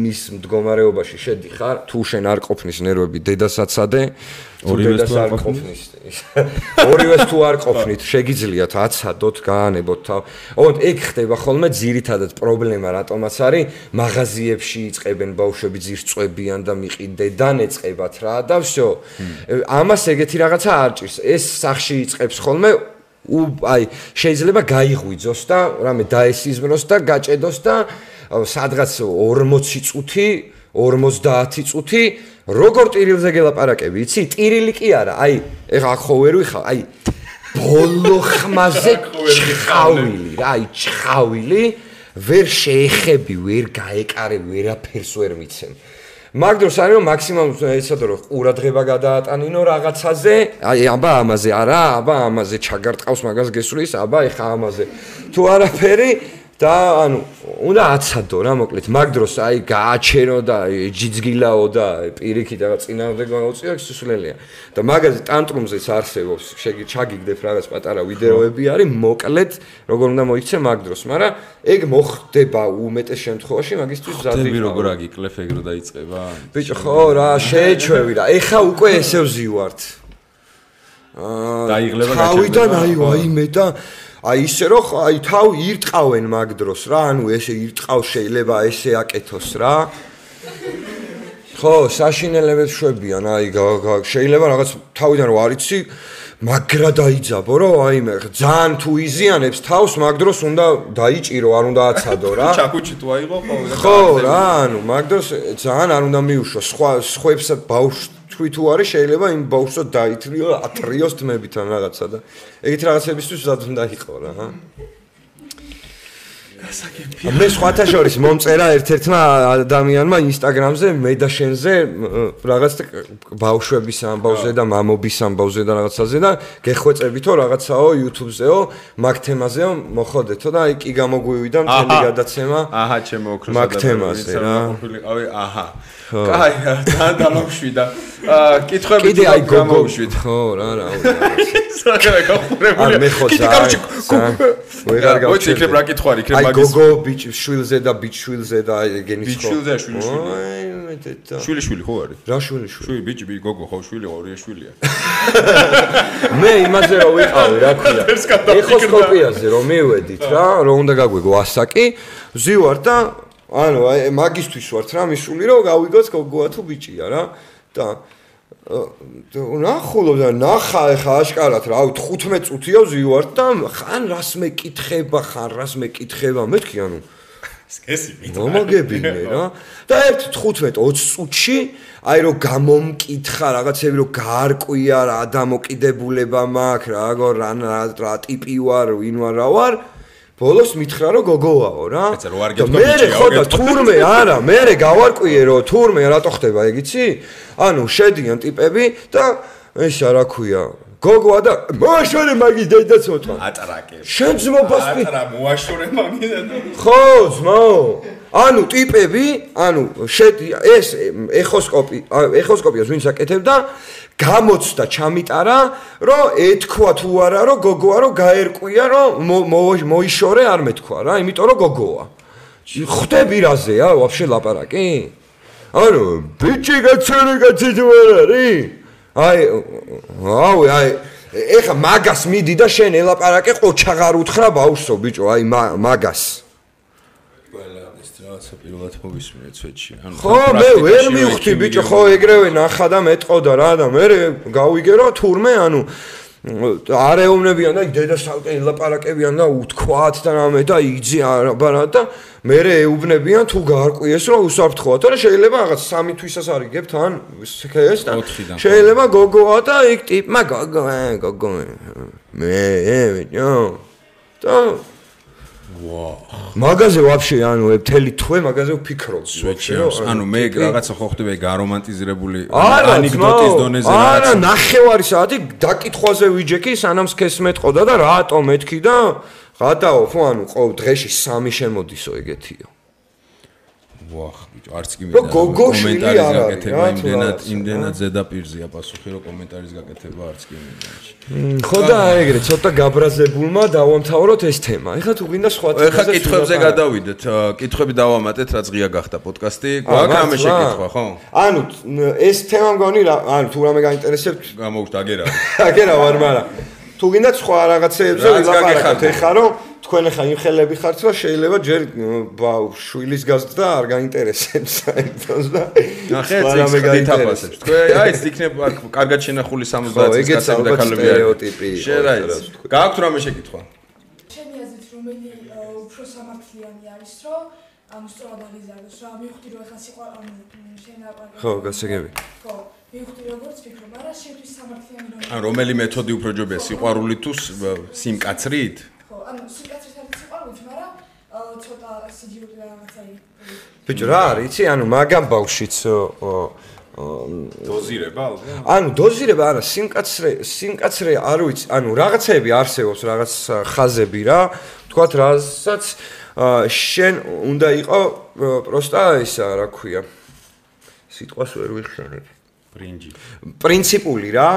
მის მდგომარეობაში შედიხარ თუ შენ არ ყოფნის ნერვები დედასაცადე ორივეს თუ არ ყოფნით შეგიძლიათ აცადოთ გაანებოთ თავ ოღონდ ეგ ხდება ხოლმე ძირითადად პრობლემა რატომაც არის მაღაზიებში იწყებენ ბავშვები ძირს წვებიან და მიყიდედან ეწყებათ რა და всё ამას ეგეთი რაღაცა არ ჭირს ეს სახში იწყებს ხოლმე აი შეიძლება გაიღვიძოს და რამე დაესიზმროს და გაჭედოს და სადღაც 40 წუთი 50 წუთი როგორ ტირილზე გელაპარაკები იცი ტირილი კი არა აი ეხა ხო ვერ ვიხავ აი ბოლო ხმაზე ჩხავილი რა აი ჩხავილი ვერ შეეხები ვერ გაეკარები ვერაფერს ვერ მიცემ მაგ დროს არის რომ მაქსიმალურად ეცადო რომ ყურადღება გადაატანინო რაღაცაზე აი აბა ამაზე არა აბა ამაზე ჩაგარტყავს მაგას გესulis აბა ეხა ამაზე თუ არაფერი და ანუ უნდა აცადო რა მოკლედ მაგ დროს აი გააჩერო და ჯიძგილაო და პირიქით რაღაც წინააღმდეგ გაუწიო ეს სულელია და მაგაზე ტანტრუმზეც არსებობს ჩაგიგდებ რაღაც პატარა ვიდეოები არის მოკლედ როგორ უნდა მოიქცე მაგ დროს მაგრამ ეგ მოხდება უმეტეს შემთხვევაში მაგისთვის ზადი როგორ აგიკლებ ეგ რო დაიწყება ბიჭო ხო რა შეეჩვევი რა ეხა უკვე ესე ვზივართ დაიღლება თავიდან აი მე და აი ისე რომ აი თავ ირტყავენ მაგ დროს რა ანუ ესე ირტყავს შეიძლება ესე აკეთოს რა ხო საშინელებებს შვებიან აი შეიძლება რაღაც თავიდან რო არიცი მაგრა დაიძაბო რომ აი მე ძალიან თუ იზიანებს თავს მაგ დროს უნდა დაიჭირო არ უნდა აცადო რა ჩაკუჩი თუ აიღო ხო რა ანუ მაგ დროს ძალიან არ უნდა მიუშო სხვებს ბავშვს თუ არის შეიძლება იმ ბავშვს დაითრიო ათრიოს თმებიდან რაღაცა და ეგეთ რაღაცებისთვის ზად უნდა იყო რა გასაგებია მე სხვათა შორის მომწერა ერთ-ერთმა ადამიანმა ინსტაგრამზე მე და შენზე რაღაც ბავშვების ამბავზე და მამობის ამბავზე და რაღაცაზე და გეხვეწებითო რაღაცაო YouTube-ზეო მაგ თემაზეო მოხოდეთო და აი კი გამოგვივიდა მთელი გადაცემა აჰა ჩემო ოქროს მაგ თემაზე რა ავი აჰა კაი ძალიან დამოვშვიდა კითხვები კიდე აი გამოუშვით ხო რა საკრა გახურებული მე ხო კაროჩი ვეღარ გავჩერდი მოიცი იქნებ რა კითხვარი იქნებ მაგის აი გოგო ბიჭშვილზე და ბიჭშვილზე და ეგენის ხო ბიჭშვილზე შვილი ხო არის რა შვილი ბიჭი გოგო ხო შვილი ორია შვილია მე იმაზე რომ ვიყავი რა ქვია ეხოსკოპიაზე რომ მივედით რა რომ უნდა გაგვიგო ასაკი ვზივარ და ანუ აი მაგისტვის ვართ რა მისული რომ გავიგოც გოგოა თუ ბიჭია რა და ნახულობ და ნახა ეხა აშკარად რა 15 წუთია ვზივართ და ხან რას მეკითხება მეთქი ანუ სკესი მომაგებინე რა და ერთ 15-20 წუთში აი რომ გამომკითხა რაღაცები რომ გაარკვია რა დამოკიდებულება მაქვს რა ტიპი ვარ ვინ ვარ რა ვარ ბოლოს მითხრა რომ გოგოაო რა და მე ხო და თურმე არა მე გავარკვიე რომ თურმე რატო ხდება ეგ იცი ანუ შედიან ტიპები და ესა რა ქვია გოგოა და მოაშორე მაგის დედაც მოტყვა ატრაკე შენ ძმობას ატარა მოაშორე მაგის დედა ხო ძმაო ანუ ტიპები, ანუ ეს ეხოსკოპიას ვინც აკეთებდა, გამოცდა ჩამიტარა, რომ ეთქვა თუ არა, რომ გოგოა, რომ გაერკვია, რომ მოიშორე არ მეთქვა რა, იმიტომ რომ გოგოა. ხვდები რაზეა, ვაფშე ლაპარაკი? ანუ ბიჭი გაცხარი კაცი თუ არ არის? აი ეხა მაგას მიდი და შენ ელაპარაკე ყოჩაღარ უთხრა ბავშვო ბიჭო, აი მაგას. რაღაცა პირველად მოვისმინე ცვეთში. ხო, მე ვერ მივხვდი ბიჭო, ხო ეგრევე ნახა და მეტყოდა რა და მე გავიგე რომ თურმე, ანუ არ ეუბნებიან და დედასალკე ელაპარაკებიან და უთქვათ და რამე და იგზი არაბარა და მე ეუბნებიან თუ გაარკვიეს რომ უსაფრთხოა და შეიძლება რაღაც 3 თვისას არიგებთ ან ეს და შეიძლება გოგოა და იქ ტიპმა გოგო მე ბიჭო და ვაუ მაგაზე ვაფშე ანუ მთელი თვე მაგაზე ვფიქრობ ანუ მე რაღაცა ხო ხდება გარომანტიზირებული ანეკდოტის დონეზე რაღაც არა ნახევარი საათი დაკითხვაზე ვიჯექი სანამ სქეს მეტყოდა და რატომ მეთქი და გადაო ხო ანუ ყოველ დღეში 3 შემოდისო ეგეთიო ვახ ბიჭო არც კი მინდა კომენტარის გაკეთება იმდენად ზედაპირზეა პასუხი რომ კომენტარის გაკეთება არც კი მინდა ხო და ეგრე ცოტა გაბრაზებულმა დავამთავროთ ეს თემა. ეხლა თუ გინდა სხვა თემაზე ეხლა კითხვებზე გადავიდეთ. კითხვები დავამატეთ, რაც ღია გახდა პოდკასტი. გვაქვს რამე შეკითხვა, ხო? ანუ ეს თემა მგონი რა, ანუ თუ რამე გაინტერესებთ, გამოგთ აგერავ. აგერავ არ მაგრამ თუ გინდა სხვა რაღაცეებზე ვილაპარაკოთ ეხლა რომ თქვენ ახლა იმ ხელები ხართ რომ შეიძლება ჯერ შვილის გაზრდა არ გაინტერესებს საერთოდ და ნახეთ რამე გაინტერესებს. თქვენ აი ეს იქნება კარგად შენახული 70 წლის კაცები და ქალები სტერეოტიპი. გააქვთ რამე შეკითხვა? ჩემი აზრით რომელი უფრო სამართლიანი არის რომ ანუ სწორად აღიზარდოს რა მივხვდი რომ ახლა სიყვა ანუ შენ აპარატი ხო გასაგები ხო მივხვდი როგორც ფიქრობ არა შეთვის სამართლიანი რომ ან რომელი მეთოდი უფრო ჯობია სიყვარული თუ სიმკაცრით? ხო ანუ სიმკაცრით არის სიყვარული მაგრამ ცოტა სიჯიუტი რაღაცა ბიჭო რა არის იცი ანუ მაგამ ბავშვიც დოზირება ალბათ ანუ დოზირება არა სიმკაცრე არ ვიცი ანუ რაღაცები არსებობს რაღაც ხაზები რა თქვათ რასაც შენ უნდა იყო პროსტა ისა რა ქვია სიტყვას ვერ ვიხსენებ პრინციპული რა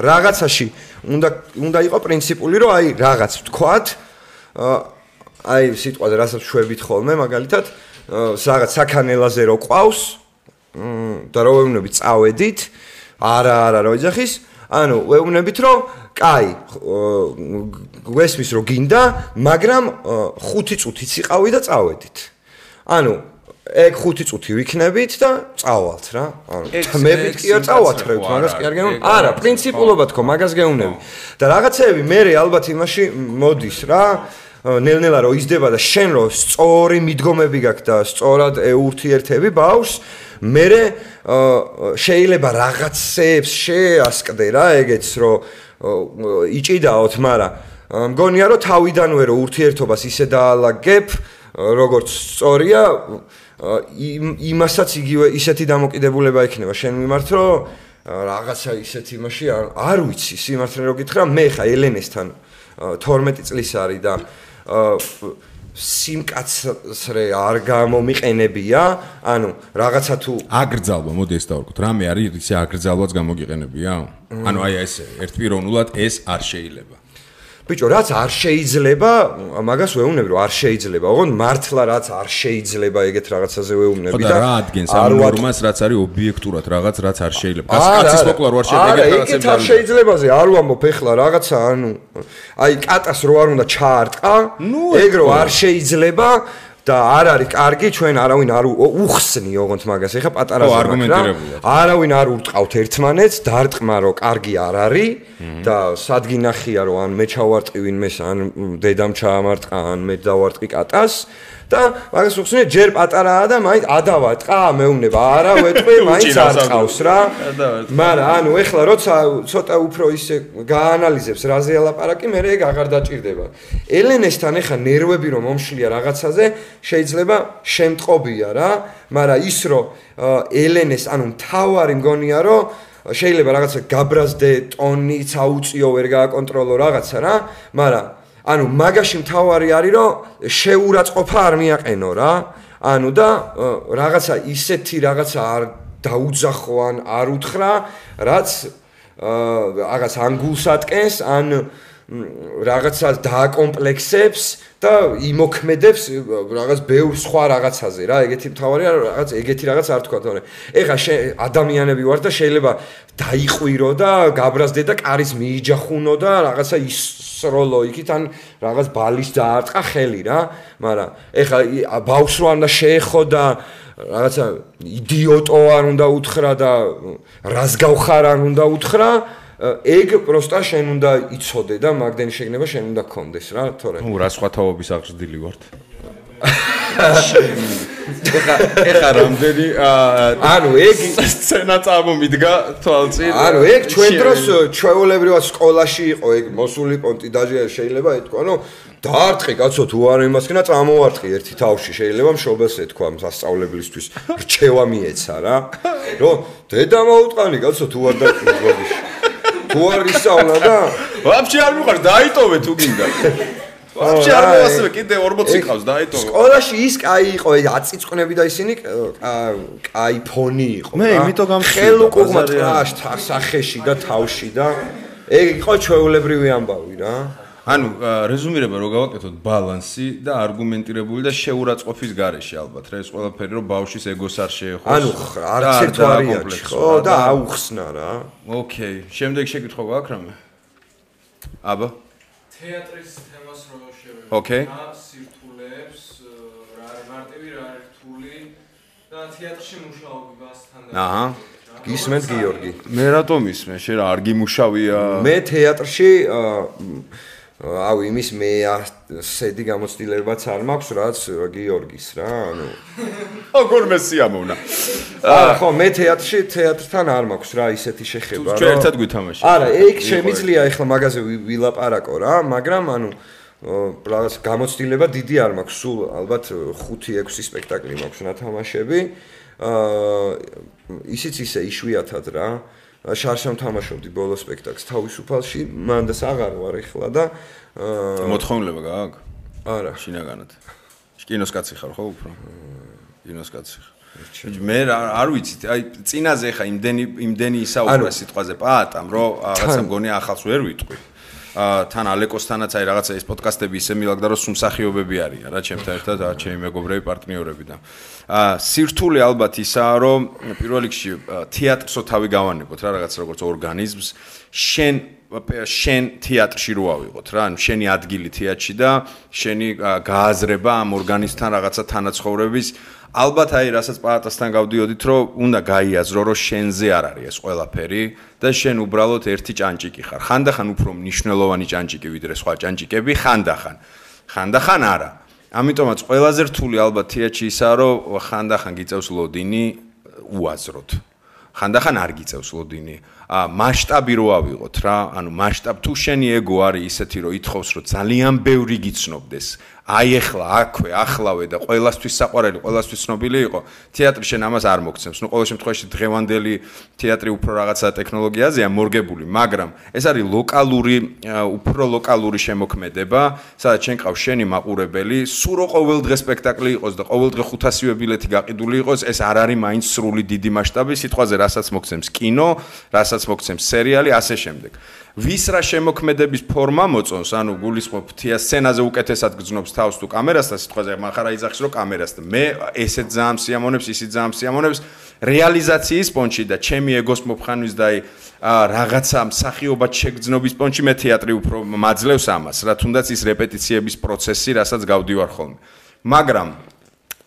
რაღაცაში უნდა იყო პრინციპული რომ აი რაღაც თქვათ აი სიტყვაზე რასაც შვებით ხოლმე მაგალითად რაღაც საქანელაზე რო ყავს და რო ვეუბნებით წავედით არა რო იძახის ანუ ვეუბნებით რომ კაი გვესმის რომ გინდა მაგრამ 5 წუთიც იყავი და წავედით ანუ ეგ 5 წუთი ვიქნებით და წავალთ რა ანუ თმებით კი არ წავათრევთ მაგას კი არ გეუბნები არა პრინციპულობა თქო მაგას გეუბნები და რაღაცეები მე ალბათ იმაში მოდის რა ნელ-ნელა რო იზრდება და შენ რო სწორი მიდგომები გაქვს და სწორად ურთიერთები ბავშვს მე შეიძლება რაღაცებს შეასკდე რა ეგეც რომ იჭიდაოთ მაგრამ მგონია რომ თავიდანვე რო ურთიერთობას ისე დაალაგებ როგორც სწორია იმასაც იგივე ისეთი დამოკიდებულება იქნება შენ მიმართ რომ რაღაცა ისეთი იმაში არ ვიცი სიმართლე რო გითხრა მე ხა ელენესთან 12 წლის არის და სიმკაცრე არ გამომიყენებია ანუ რაღაცა თუ აგრძალვა მოდი ეს დავარქოთ რამე არის ისე აგრძალვაც გამოგიყენებია ანუ აი ესე ერთპიროვნულად ეს არ შეიძლება ბიჭო რაც არ შეიძლება მაგას ვეუბნები რომ არ შეიძლება ოღონდ მართლა რაც არ შეიძლება ეგეთ რაღაცაზე ვეუბნები და რა ადგენს ამ ნორმას რაც არის ობიექტურად რაღაც რაც არ შეიძლება კაცის მოკლა რო არ შეიძლება ეგეთ არ შეიძლებაზე არ ვამბობ ეხლა რაღაცა ანუ აი კატას რო არ უნდა ჩაარტყა ეგ რო არ შეიძლება და არ არის კარგი ჩვენ არავინ არ უხსნი ოღონდ მაგას ეხა პატარა არგუმენტირებულად არავინ არ ურტყავთ ერთმანეთს დარტყმა რომ კარგი არ არის და სადგი ნახია რომ ან მე ჩავარტყი ვინმეს ან დედამ ჩაამარტყა ან მე დავარტყი კატას და მაგას უხსნი ჯერ პატარაა და მაინც ადავატყა მეუბნება არა ვეტყვი მაინც არ ყავს რა მაგრამ ანუ ეხლა როცა ცოტა უფრო ისე გაანალიზებს რაზე ელაპარაკი მე ეგ აღარ დაჭირდება ელენესთან ეხა ნერვები რომ მომშლია რაღაცაზე შეიძლება შემტყობია რა მაგრამ ის რომ ელენეს ანუ მთავარი მგონია რომ შეიძლება რაღაცა გაბრაზდე ტონიც აუწიო ვერ გააკონტროლო რაღაცა რა მაგრამ ანუ მაგაში მთავარი არის რომ შეურაცხყოფა არ მიაყენო რა ანუ და რაღაცა ისეთი რაღაცა არ დაუძახო ან არ უთხრა რაც რაღაც ანგულს ატკენს ან რაღაცა დააკომპლექსებს და იმოქმედებს რაღაც ბევრ სხვა რაღაცაზე რა ეგეთი მთავარია რაღაც ეგეთი რაღაც არ თქვა თორე ეხა ადამიანები ვარ და შეიძლება დაიყვირო და გაბრაზდე და კარის მიიჯახუნო და რაღაცა ისროლო იქით ან რაღაც ბალის დაარტყა ხელი რა მაგრამ ეხა ბავშვს რო არ უნდა შეეხო და რაღაცა იდიოტო არ უნდა უთხრა და რას გავხარ არ უნდა უთხრა ეგ პროსტა შენ უნდა იცოდე და მაგდენი შეგნება შენ უნდა გქონდეს რა თორე ნუ რა სხვა თაობის აღზრდილი ვართ ეხა რამდენი ანუ ეგ სცენა წამომიდგა თვალწინ ანუ ეგ ჩვენ დროს ჩვეულებრივად სკოლაში იყო ეგ მოსული პონტი დაჟე შეიძლება ეთქვა ნუ დაარტყი კაცო თუ არ იმასკენა წამოვარტყი ერთი თავში შეიძლება მშობელს ეთქვა სასწავლებლისთვის რჩევა მიეცა რა რომ დედა მოუტყანი კაცო თუ არ დაარტყი თუ არ ისწავლა და ვაფშე არ მიყვარს დაიტოვე თუ გინდა ვაფშე არ მოასწრე კიდე 40 ყავს დაიტოვე სკოლაში ის კაი იყო აწიწკნები და ისინი კაი ფონი იყო მე იმიტომ გამხსნა ხელუკუღმა ტრაშ სახეში და თავში და ეგ იყო ჩვეულებრივი ამბავი რა ანუ რეზუმირება რო გავაკეთოთ ბალანსი და არგუმენტირებული და შეურაცხყოფის გარეშე ალბათ რა ეს ყველაფერი რომ ბავშვის ეგოს არ შეეხოს ანუ არც ერთ ვარიანტი ხო და აუხსნა რა ოკეი შემდეგ შეკითხვა გაქვს რამე აბა თეატრის თემას რო შევეხო ოკეი სირთულეებს რა არის მარტივი რა არის რთული და თეატრში მუშაობასთან აჰა გისმენთ გიორგი მე რატომ ისმე შენ რა არ გიმუშავია მე თეატრში აუ იმის მე ასეთი გამოცდილებაც არ მაქვს რაც გიორგის რა ანუ აგორმე სიამოვნა ხო მე თეატრთან არ მაქვს რა ისეთი შეხება ჩვენ ერთად გვითამაშე არა ეგ შემიძლია ეხლა მაგაზე ვილაპარაკო რა მაგრამ ანუ რაღაც გამოცდილება დიდი არ მაქვს სულ ალბათ 5-6 სპექტაკლი მაქვს ნათამაშები ისიც ისე იშვიათად რა შარშამ თამაშობდი ბოლო სპექტაკლს თავისუფალში მანდას აღარ ვარ ეხლა და მოთხოვნილება გააქვს არა შინაგანად კინოს კაცი ხარ ხო უფრო კინოს კაცი ხარ მე არ ვიცი აი წინაზე ხა იმდენი ისაუბრა სიტყვაზე პაატამ რომ რაღაცა მგონი ახალს ვერ ვიტყვი თან ალეკოსთანაც აი რაღაცა ეს პოდკასტები ისე მილაგდა რომ სუმსახიობები არიან რა ჩემთან ერთად ჩემი მეგობრები პარტნიორები და სირთულე ალბათ ისაა რომ პირველ რიგში თეატრსო თავი გავანებოთ რა რაღაც როგორც ორგანიზმს შენ თეატრში რო ავიღოთ რა ანუ შენი ადგილი თეატრში და შენი გააზრება ამ ორგანიზმთან რაღაცა თანაცხოვრების ალბათ აი რასაც პაატასთან გავდიოდით რომ უნდა გაიაზრო რომ შენზე არ არის ეს ყველაფერი და შენ უბრალოდ ერთი ჭანჭიკი ხარ ხანდახან უფრო მნიშვნელოვანი ჭანჭიკი ვიდრე სხვა ჭანჭიკები ხანდახან არა ამიტომაც ყველაზე რთული ალბათ თეატრში ისაა რომ ხანდახან გიწევს ლოდინი უაზროდ ხანდახან არ გიწევს ლოდინი მასშტაბი რო ავიღოთ რა ანუ მასშტაბ თუ შენი ეგო არის ისეთი რომ ითხოვს რომ ძალიან ბევრი გიცნობდეს აი ახლა აქვე ახლავე და ყველასთვის საყვარელი ყველასთვის ცნობილი იყო თეატრი შენ ამას არ მოგცემს ნუ ყოველ შემთხვევაში დღევანდელი თეატრი უფრო რაღაცა ტექნოლოგიაზეა მორგებული მაგრამ ეს არის უფრო ლოკალური შემოქმედება სადაც შენ ყავს შენი მაყურებელი სულ რო ყოველ დღე სპექტაკლი იყოს და ყოველ დღე 500-ე ბილეთი გაყიდული იყოს ეს არ არის მაინც სრული დიდი მასშტაბი სიტყვაზე რასაც მოგცემს კინო რასაც მოგცემს სერიალი ასე შემდეგ ვის რა შემოქმედების ფორმა მოწონს ანუ გულისხმობ სცენაზე უკეთესად გძნობს თავს თუ კამერასთან სიტყვაზე მახარა იძახის რომ კამერასთან მე ესეც ძალიან სიამონებს ისიც ძალიან სიამონებს რეალიზაციის პონჩი და ჩემი ეგოს მოფხანვის და რაღაცა მსახიობად შეგრძნობის პონჩი მე თეატრი უფრო მაძლევს ამას რა თუნდაც ის რეპეტიციების პროცესი რასაც გავდივარ ხოლმე მაგრამ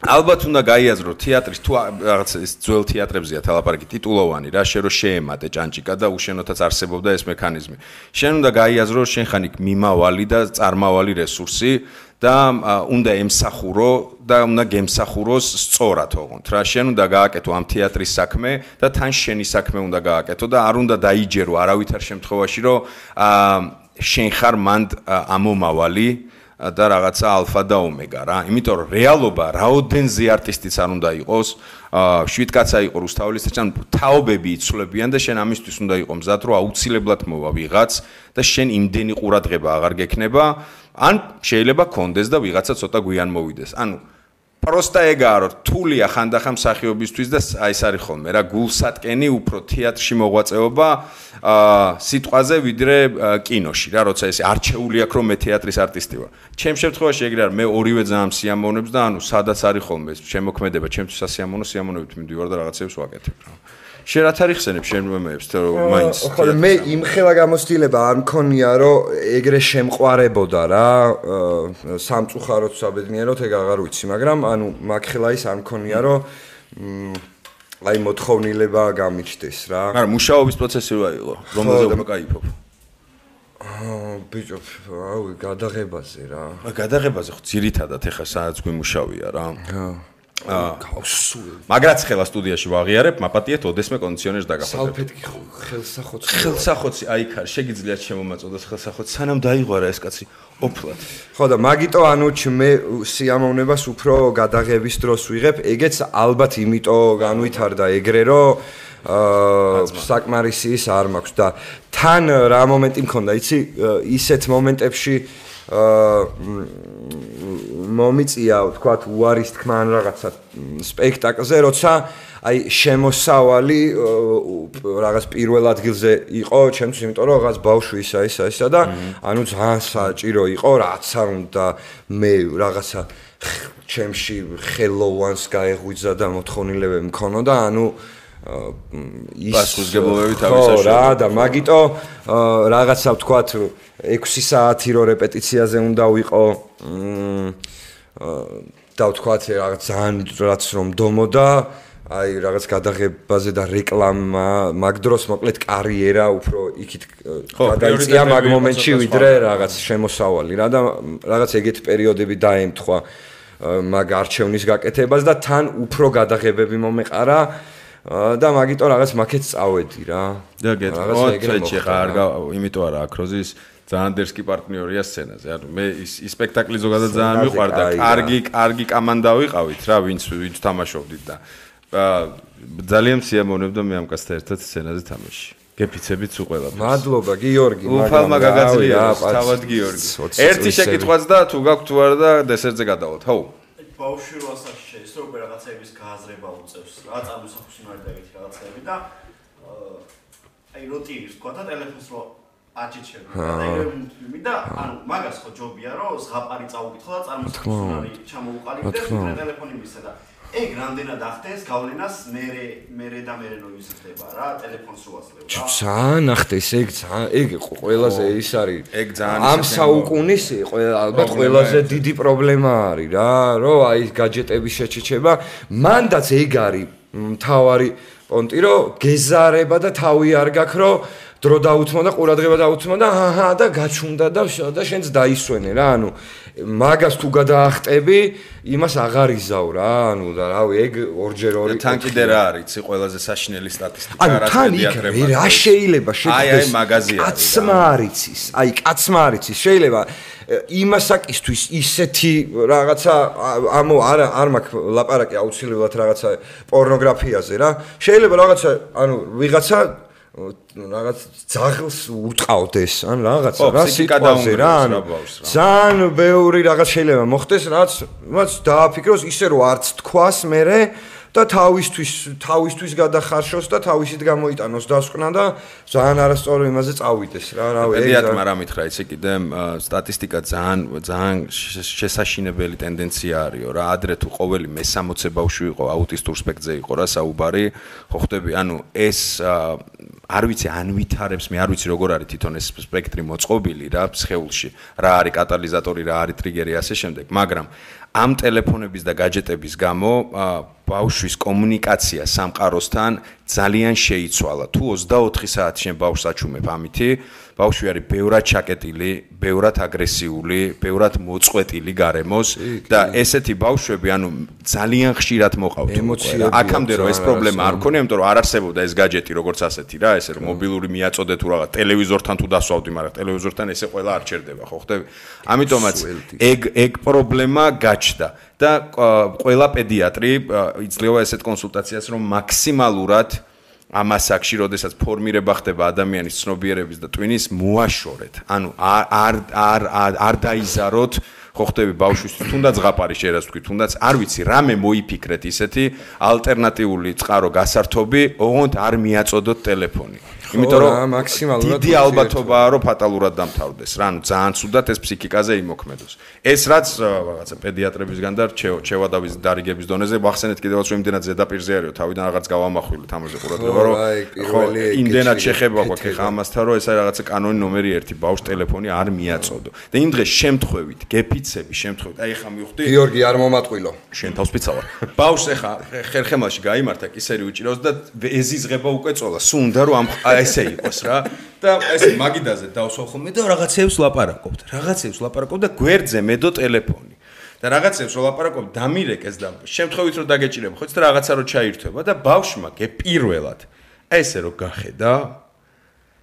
ალბათ უნდა გაიაზრო თეატრის თუ რაღაც ეს ძველ თეატრებზეა თალაპარაკი ტიტულოვანი რა შენ რო შეემატე ჭანჭიკა და უშენოთაც არსებობდა ეს მექანიზმი შენ უნდა გაიაზრო შენ ხან იქ მიმავალი და წარმავალი რესურსი და უნდა ემსახურო და უნდა გემსახუროს სწორად ოღონდ რა შენ უნდა გააკეთო ამ თეატრის საქმე და თან შენი საქმე უნდა გააკეთო და არ უნდა დაიჯერო არავითარ შემთხვევაში რომ შენ ხარ მანდ ამომავალი და რაღაცა ალფა და ომეგა რა. იმიტომ რომ რეალობა რაოდენზე არტისტიც არ უნდა იყოს, შვიდკაცა იყო რუსთაველის წინ თაობები იცვლებიან და შენ ამისთვის უნდა იყო მზად რომ აუცილებლად მოვა ვიღაც და შენ იმდენი ყურადღება აღარ გექნება ან შეიძლება კონდეს და ვიღაცა ცოტა გვიან მოვიდეს. ანუ просто ეგაა რომ რთულია ხანდახან მსახიობისთვის და აი ეს არის ხოლმე რა გულსატკენი უფრო თეატრში მოღვაწეობა სიტყვაზე ვიდრე კინოში რა როცა ეს არჩეული აქვს რომ მე თეატრის არტისტი ვარ. ჩემ შემთხვევაში ეგრე არის მე ორივე ძალიან სიამოვნებს და ანუ სადაც არის ხოლმე ეს შემოქმედება ჩემთვის სიამოვნებით მივდივარ და რაღაცებს ვაკეთებ რა. შენ რაც არის ხსენებ შენ მომეებს თუ მაინც ხო მე იმხელა გამოცდილება არ მქონია რომ ეგრე შემყარებოდა რა სამწუხაროდ საბედნიეროდ ეგ აღარ ვიცი მაგრამ ანუ მაგხელა ის არ მქონია რომ აი მოთხოვნილება გამიჩნდეს რა მაგრამ მუშაობის პროცესი რა იყო რომელზე უფრო кайფობ ბიჭო აუ გადაღებაზე რა გადაღებაზე ხო ძირითადად ეხა სადაც გვიმუშავია რა მაგრაც ხელა სტუდიაში ვაღიარებ, მაპატიეთ ოდესმე კონდიციონერს დაგაფარებ. სალფეტკი ხელსახოცი. ხელსახოცი, აი ხარ, შეგიძლიათ შემომაწოდოს ხელსახოცი, სანამ დაიღვარა ეს კაცი ოფლად. ხო და მაგიტო ანუ მე სიამოვნებას უფრო გადაღების დროს ვიღებ, ეგეც ალბათ იმიტომ განვითარდა ეგრე რომ საკმარისი ის არ მაქვს და თან რა მომენტი მქონდა, იცი, ისეთ მომენტებში მომიწია, თქვათ, უარის თქმა ან რაღაცა სპექტაკლზე, როცა აი შემოსავალი რაღაც პირველ ადგილზე იყო, ჩემთვის, იმიტომ რომ რაღაც ბავშვი ისა და ანუ ძალიან საჭირო იყო, რაც არ უნდა მე რაღაცა ჩემში ხელოვანს გაეღვიძა და მოთხოვნილებები მქონოდა, ანუ პასუხისმგებლობები თავისაშორისო რა და მაგიტო რაღაცა ვთქვათ 6 საათი რო რეპეტიციაზე უნდა ვიყო და ვთქვათ რაღაც ძალიან რაც რომ დომოდა აი რაღაც გადაღებაზე და რეკლამა მაგ დროს მოკლედ კარიერა უფრო იქით გადაიწია მაგ მომენტში ვიდრე რაღაც შემოსავალი რა და რაღაც ეგეთი პერიოდები დაემთხვა მაგ არჩევნის გაკეთებას და თან უფრო გადაღებები მომეყარა და მაგიტო რაღაც მაქეთ წავედი რა. და გეტყვი ხა არ იმიტომ არა აკროზის ძალიან დერსკი პარტნიორია სცენაზე. ანუ მე ის სპექტაკლი ზოგადად ძალიან მიყვარდა. კარგი კამანდა ვიყავით რა, ვინც თამაშობდით და ძალიან სიამოვნებდა მე ამ კაცთან ერთად სცენაზე თამაში. გეფიცებით სულ ყველაფერს. მადლობა გიორგი, უფალმა გაგაძლიერებს, თავად გიორგი. ერთი შეკითხვაც და თუ გაქვთ თუ არა და დესერტზე გადავალთ. ხო. ბავშვი რო ასაკში შეის რომ რაღაცების გააზრება უწევს რა წარმოსახვის მარდა ეგეთი რაღაცები და აი რუტინის თქვა და ტელეფონს რო აჭიჩები და ეგრე და ანუ მაგას ხო ჯობია რომ ზღაპარი წაუკითხო და წარმოსახვის მარი ჩამოუყალიბდეს და ტელეფონი მისცა და ეგ რამდენად ახდენს გავლენას მე და მე რო იზრდება რა ტელეფონს რო აძლევ რა ძალიან ახდენს ეგ ყველაზე ის არის ეგ ძალიან ამ საუკუნის ალბათ ყველაზე დიდი პრობლემა არის რა რომ აი გაჯეტების შეჩეჩება მანდაც ეგ არის მთავარი პონტი რომ გეზარება და თავი არ გაქვს რომ დრო დაუთმო და ყურადღება დაუთმო და აჰა და გაჩუნდა და შენც დაისვენე რა ანუ მაგას თუ გადაახტები იმას აღარ იზავ რა ანუ და რავი ეგ ორჯერ ორი თან კიდე რა არის იცი ყველაზე საშინელი სტატისტიკა რა პედიატრება რა შეიძლება შეგვდეს აი მაღაზია კაცმა არიცის აი კაცმა არიცის შეიძლება იმასაკისთვის ისეთი რაღაცა არ მაქვს ლაპარაკი აუცილებლად რაღაცა პორნოგრაფიაზე რა შეიძლება რაღაცა ანუ ვიღაცა რაღაც ძაღლს უტყავდეს ან რაღაცა რა სიტყვაზე რა ანუ ძალიან ბევრი რაღაც შეიძლება მოხდეს რაც დააფიქროს ისე რომ არც თქვას მერე და თავისთვის გადახარშოს და თავისით გამოიტანოს დასკვნა და ძალიან არასწორი იმაზე წავიდეს რა რავი ეგ პედიატრმა რა მითხრა იცი კიდე სტატისტიკა ძალიან შესაშინებელი ტენდენცია არისო რა ადრე თუ ყოველი მე-60 ბავშვი იყო აუტისტურ სპექტრზე იყო რა საუბარი ხო ხდები ანუ ეს არ ვიცი ან ვითარებს მე არ ვიცი როგორ არის თვითონ ეს სპექტრი მოწყობილი რა სხეულში რა არის კატალიზატორი რა არის ტრიგერი ასე შემდეგ მაგრამ ამ ტელეფონების და გაჯეტების გამო ბავშვის კომუნიკაცია სამყაროსთან ძალიან შეიცვალა. თუ 24 საათი შენ ბავშვს აჩუმებ ამითი, ბავშვი არის ბევრად ჩაკეტილი, ბევრად აგრესიული, ბევრად მოწყვეტილი გარემოს და ესეთი ბავშვები, ანუ ძალიან ხშირად მოყავთ. აქამდე რომ ეს პრობლემა არ ქონია, იმიტომ რომ არ არსებობდა ეს გაჯეტი როგორც ასეთი რა, ესე რომ მობილური მიაწოდეთ თუ რაღაც ტელევიზორთან თუ დასვავდი, მაგრამ ტელევიზორთან ესე ყველა არ ჩერდება, ხო ხდები? ამიტომაც ეგ პრობლემა გაჩნდა. და ყველა პედიატრი იძლევა ესეთ კონსულტაციას რომ მაქსიმალურად ამას აქში როდესაც ფორმირება ხდება ადამიანის ცნობიერების და ტვინის მოაშორეთ. ანუ არ დაიზაროთ ხო ხდები ბავშვისთვის თუნდაც ზღაპარი შეიძლება თქვი თუნდაც არ ვიცი რამე მოიფიქრეთ ისეთი ალტერნატიული წყარო გასართობი ოღონდ არ მიაწოდოთ ტელეფონი იმიტომ რომ მაქსიმალურად დიდი ალბათობაა რომ ფატალურად დამთავრდეს რა ანუ ძალიან ცუდად ეს ფსიქიკაზე იმოქმედოს ეს რაც რაღაცა პედიატრებისგან და ჩევადავის დარიგების დონეზე ვახსენეთ კიდევაც რომ იმდენად ზედაპირზე არისო თავიდან რაღაც გავამახვილეთ ამაზე ყურადღება რომ ხო იმდენად შეხება გვაქვს ხა ამასთან რომ ეს არის რაღაცა კანონი ნომერი 1 ბავშვს ტელეფონი არ მიაწოდო და იმ დღეს შემთხვევით გეფიცები შემთხვევით აი ხა მივხვდი გიორგი არ მომატყვილო შენ თავს ფიცავარ ბავშვს ეხა ხერხემალში გაიმართა კისერი უჭირავს და ეზიზღება უკვე წოლა სუნდა რომ ესე იყოს რა და ესე მაგიდაზე დავსვავ ხოლმე და რაღაცებს ლაპარაკობთ და გვერდზე მედო ტელეფონი და რაღაცებს ლაპარაკობ დამირეკეს და შემთხვევით რომ დაგეჭირება ხო იცით რაღაცა რო ჩაირთვება და ბავშვმა გეპირველად ესე რო გახედა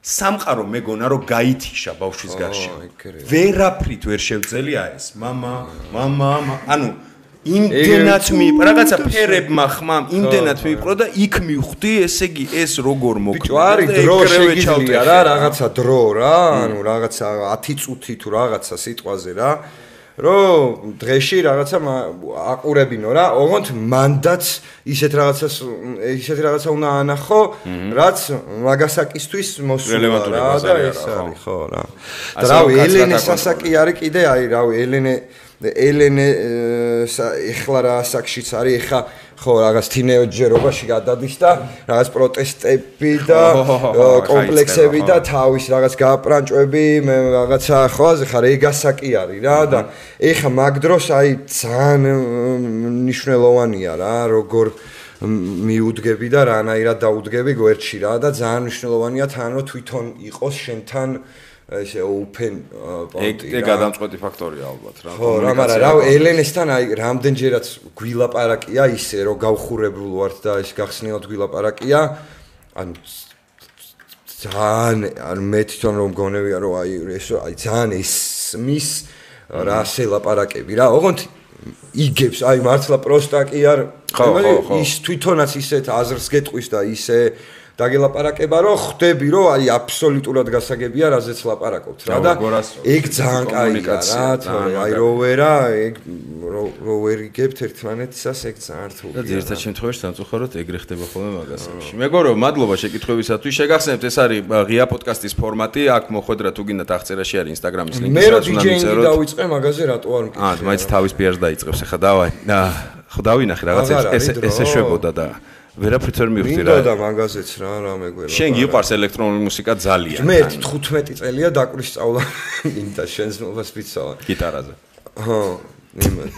სამყარო მეგონა რომ გაითიშა ბავშვის გარშემო ვერაფრით ვერ შევძელია ეს მამა ანუ იმდენად რაღაცა ფერებმა ხმამ იმდენად მიპყრო და იქ მივხვდი ესე იგი ეს როგორ მოხდა ბიჭო არის დრო შეგიძლია რა რაღაცა დრო რა ანუ რაღაცა 10 წუთი თუ რაღაცა სიტყვაზე რა რომ დღეში რაღაცა აყურებინო რა ოღონდ მანდაც ისეთ რაღაცა უნდა ანახო რაც მაგასაკისთვის მოსულა რა და ეს არის ხო რა და რავი ელენე სასაკი არის კიდე აი რავი ელენე ეხლა რა ასაკშიც არის ეხა ხო რაღაც თინეიჯერობაში გადადის და რაღაც პროტესტები და კომპლექსები და თავის რაღაც გააპრანჭვები რაღაცა ხო ხა რეგასაკი არის რა და ეხა მაგ დროს აი ძალიან მნიშვნელოვანია რა როგორ მიუდგები და რანაირად დაუდგები გვერდში რა და ძალიან მნიშვნელოვანია თან რომ თვითონ იყოს შენთან ესე open პონტი რა. ეგ გადამწყვეტი ფაქტორია ალბათ რა. ხო, რა, მაგრამ რა ელენესთან აი რამდენჯერაც გვილაპარაკია ისე რომ გავხურებულ ვართ და ეს გახსნილად გვილაპარაკია. ანუ ძალიან მე თვითონ რომ გონებია რომ აი ესო აი ძალიან ისმის რა სელაპარაკები რა. ოღონდ იგებს აი მართლა პროსტა კი არ ის თვითონაც ისეთ აზრს გეტყვის და ისე დაგელაპარაკება რომ ხვდები რომ აი აბსოლუტურად გასაგებია რაზეც ლაპარაკობთ რა და ეგ ძალიან კაია რა თორე აი როვერა ეგ როვერიგებთ ერთმანეთისას ეგ ძალიან რთულია და ერთად შემთხვევაში სამწუხაროდ ეგრე ხდება ხოლმე მაგასებში მეგობრებო მადლობა შეკითხვებისათვის შეგახსენებთ ეს არის ღია პოდკასტის ფორმატი აქ მოხვედრა თუ გინდათ აღწერაში არის ინსტაგრამის ლინკი მე რომ დიჯეინგი დავიწყე მაგაზე რატო არ მკითხე მაინც თავის პიარს დაიწყებს ახლა დავაი ხო დავინახე რაღაცა ესე შვებოდა და ვერაფრით ვერ მივხვდი რა. მინდოდა მაგაზეც რა მეგვერა. შენ გიყვარს ელექტრონული მუსიკა ძალიან. მე 15 წელია დაკვირისწავლა მინდა შენს მოვას ვიცავ. გიტარაზე. ხო, იმან.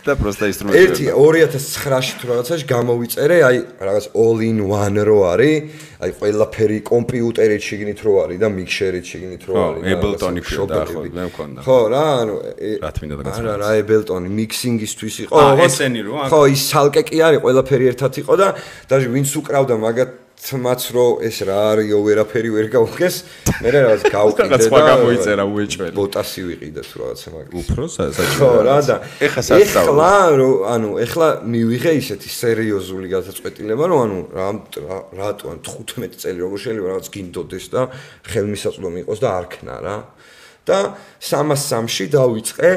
და პროსტა ინსტრუმენტი. 2009-ში თუ რაღაცაში გამოვიწერე, აი რაღაც all in one რო არის, აი ყველაფერი კომპიუტერით შეგინით რო არის და მიქსერით შეგინით რო არის. Ableton-ი და ხო, მე მქონდა. ხო რა, ანუ რა თქმა უნდა გასაგებია. არა, Ableton-ი მიქსინგისთვის იყო. ესენი რო? ხო, ის ცალკე კი არის, ყველაფერი ერთად იყო და даже ვინც უკრავდა მაგათ თმაც რო ეს რა არისო ვერაფერი ვერ გავხეს მე რაღაც გავყიდე და სხვა გამოიწერა უეჭველი ბოტასი ვიყიდე თუ რაღაცა მაგას უფრო საჭირო ხო რა და ეხლა სასწავლო ანუ ეხლა მივიღე ისეთი სერიოზული გადაწყვეტილება რომ ანუ რატო ან 15 წელი როგორ შეიძლება რაღაც გინდოდეს და ხელმისაწვდომი იყოს და არქნა რა და 303-ში დავიწყე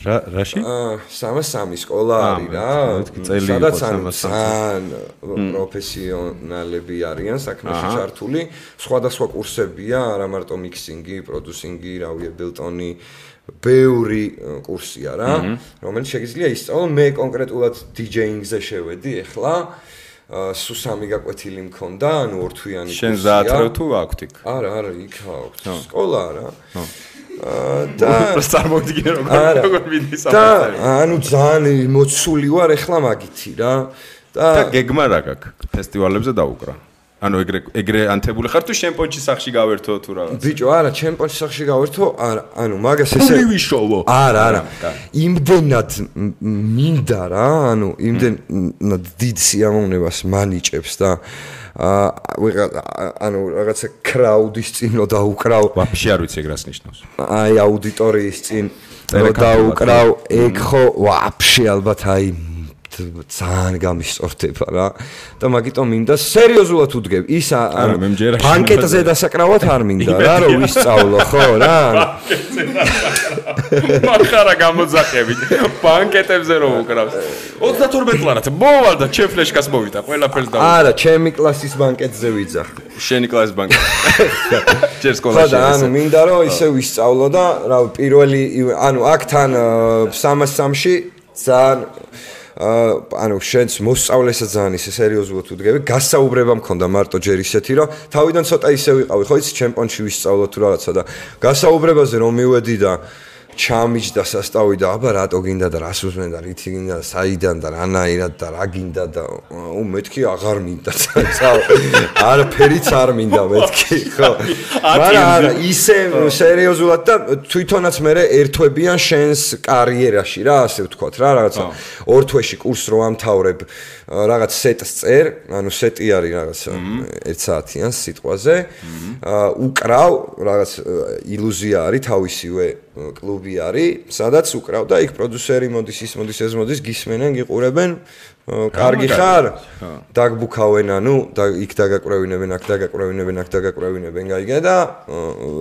რაში? 303 სკოლა არის რა. სადაც ძალიან პროფესიონალები არიან საქმეში ჩართული. სხვადასხვა კურსებია, არა მარტო მიქსინგი, პროდიუსინგი, რავი, Ableton-ი, ბევრი კურსია რა, რომელიც შეგიძლია ისწავლო. მე კონკრეტულად DJ-ზე შევედი ახლა. სულ 3 გაკვეთილი მქონდა, ანუ ორთვიანი კურსია. შენ ზაათრევ თუ აქვთ იქ? არა, იქ აქვთ. სკოლა რა. და წარმოვიდგინე როგორ მიდის და ანუ ძალიან მოცული ვარ ახლა მაგითი რა და გეგმა რა გაქვს ფესტივალებზე დაუკრა ანუ ეგრე ანთებული ხარ თუ ჩემპიონში სახში გავერთო თუ რაღაც ბიჭო არა ჩემპიონში სახში გავერთო არა ანუ მაგას ესე ვიშოვო არა იმდენად მინდა რა ანუ იმდენად დიდ სიამოვნებას მანიჭებს და ანუ რაღაცა კრაუდის წინ რო დაუკრავ ვაფშე არ ვიცი ეგ რას ნიშნავს აი აუდიტორიის წინ რო დაუკრავ ეგ ხო ვაფშე ალბათ აი ძალიან გამისწორდება რა და მაგიტომ მინდა სერიოზულად უდგებ ის ბანკეტზე დასაკრავად არ მინდა რა რომ ვისწავლო ხო რა მახარა გამოძახებით ბანკეტებზე რომ უკრავს 32 ლარად მოვალ და ჩემ ფლეშკას მოვიდა ყველაფერს და არა ჩემი კლასის ბანკეტზე ვიძახ შენი კლასის ბანკეტ ჯერ სკოლაში ანუ მინდა რომ ისე ვისწავლო და რა პირველი ანუ აქ თან 303-ში ძალიან ანუ შენს მოსწავლესაც ძალიან ისე სერიოზულად უდგები გასაუბრება მქონდა მარტო ჯერ ისეთი რომ თავიდან ცოტა ისე ვიყავი ხო იცი ჩემპიონში ვისწავლო თუ რაღაცა და გასაუბრებაზე რომ მივედი და ჩამიჯდა სასტავი და აბა რატო გინდა და რას უსმენ და რითი გინდა საიდან და რანაირად და რა გინდა და მეთქი აღარ მინდა არაფერიც არ მინდა მეთქი ხო მაგრამ ისე სერიოზულად და თვითონაც მე ერთვებიან შენს კარიერაში რა ასე ვთქვათ რა რაღაცა ორ თვეში კურსს რო ამთავრებ რაღაც სეტს წერ ანუ სეტი არის რაღაც 1 საათიან სიტყვაზე უკრავ რაღაც ილუზია არის თავისივე კლუბი არის სადაც უკრავ და იქ პროდიუსერი მოდის ის მოდის ეს მოდის გისმენენ გიყურებენ კარგი ხარ დაგბუქავენ ანუ იქ დაგაკვრევინებენ აქ დაგაკვრევინებენ აქ დაგაკვრევინებენ გაიგე და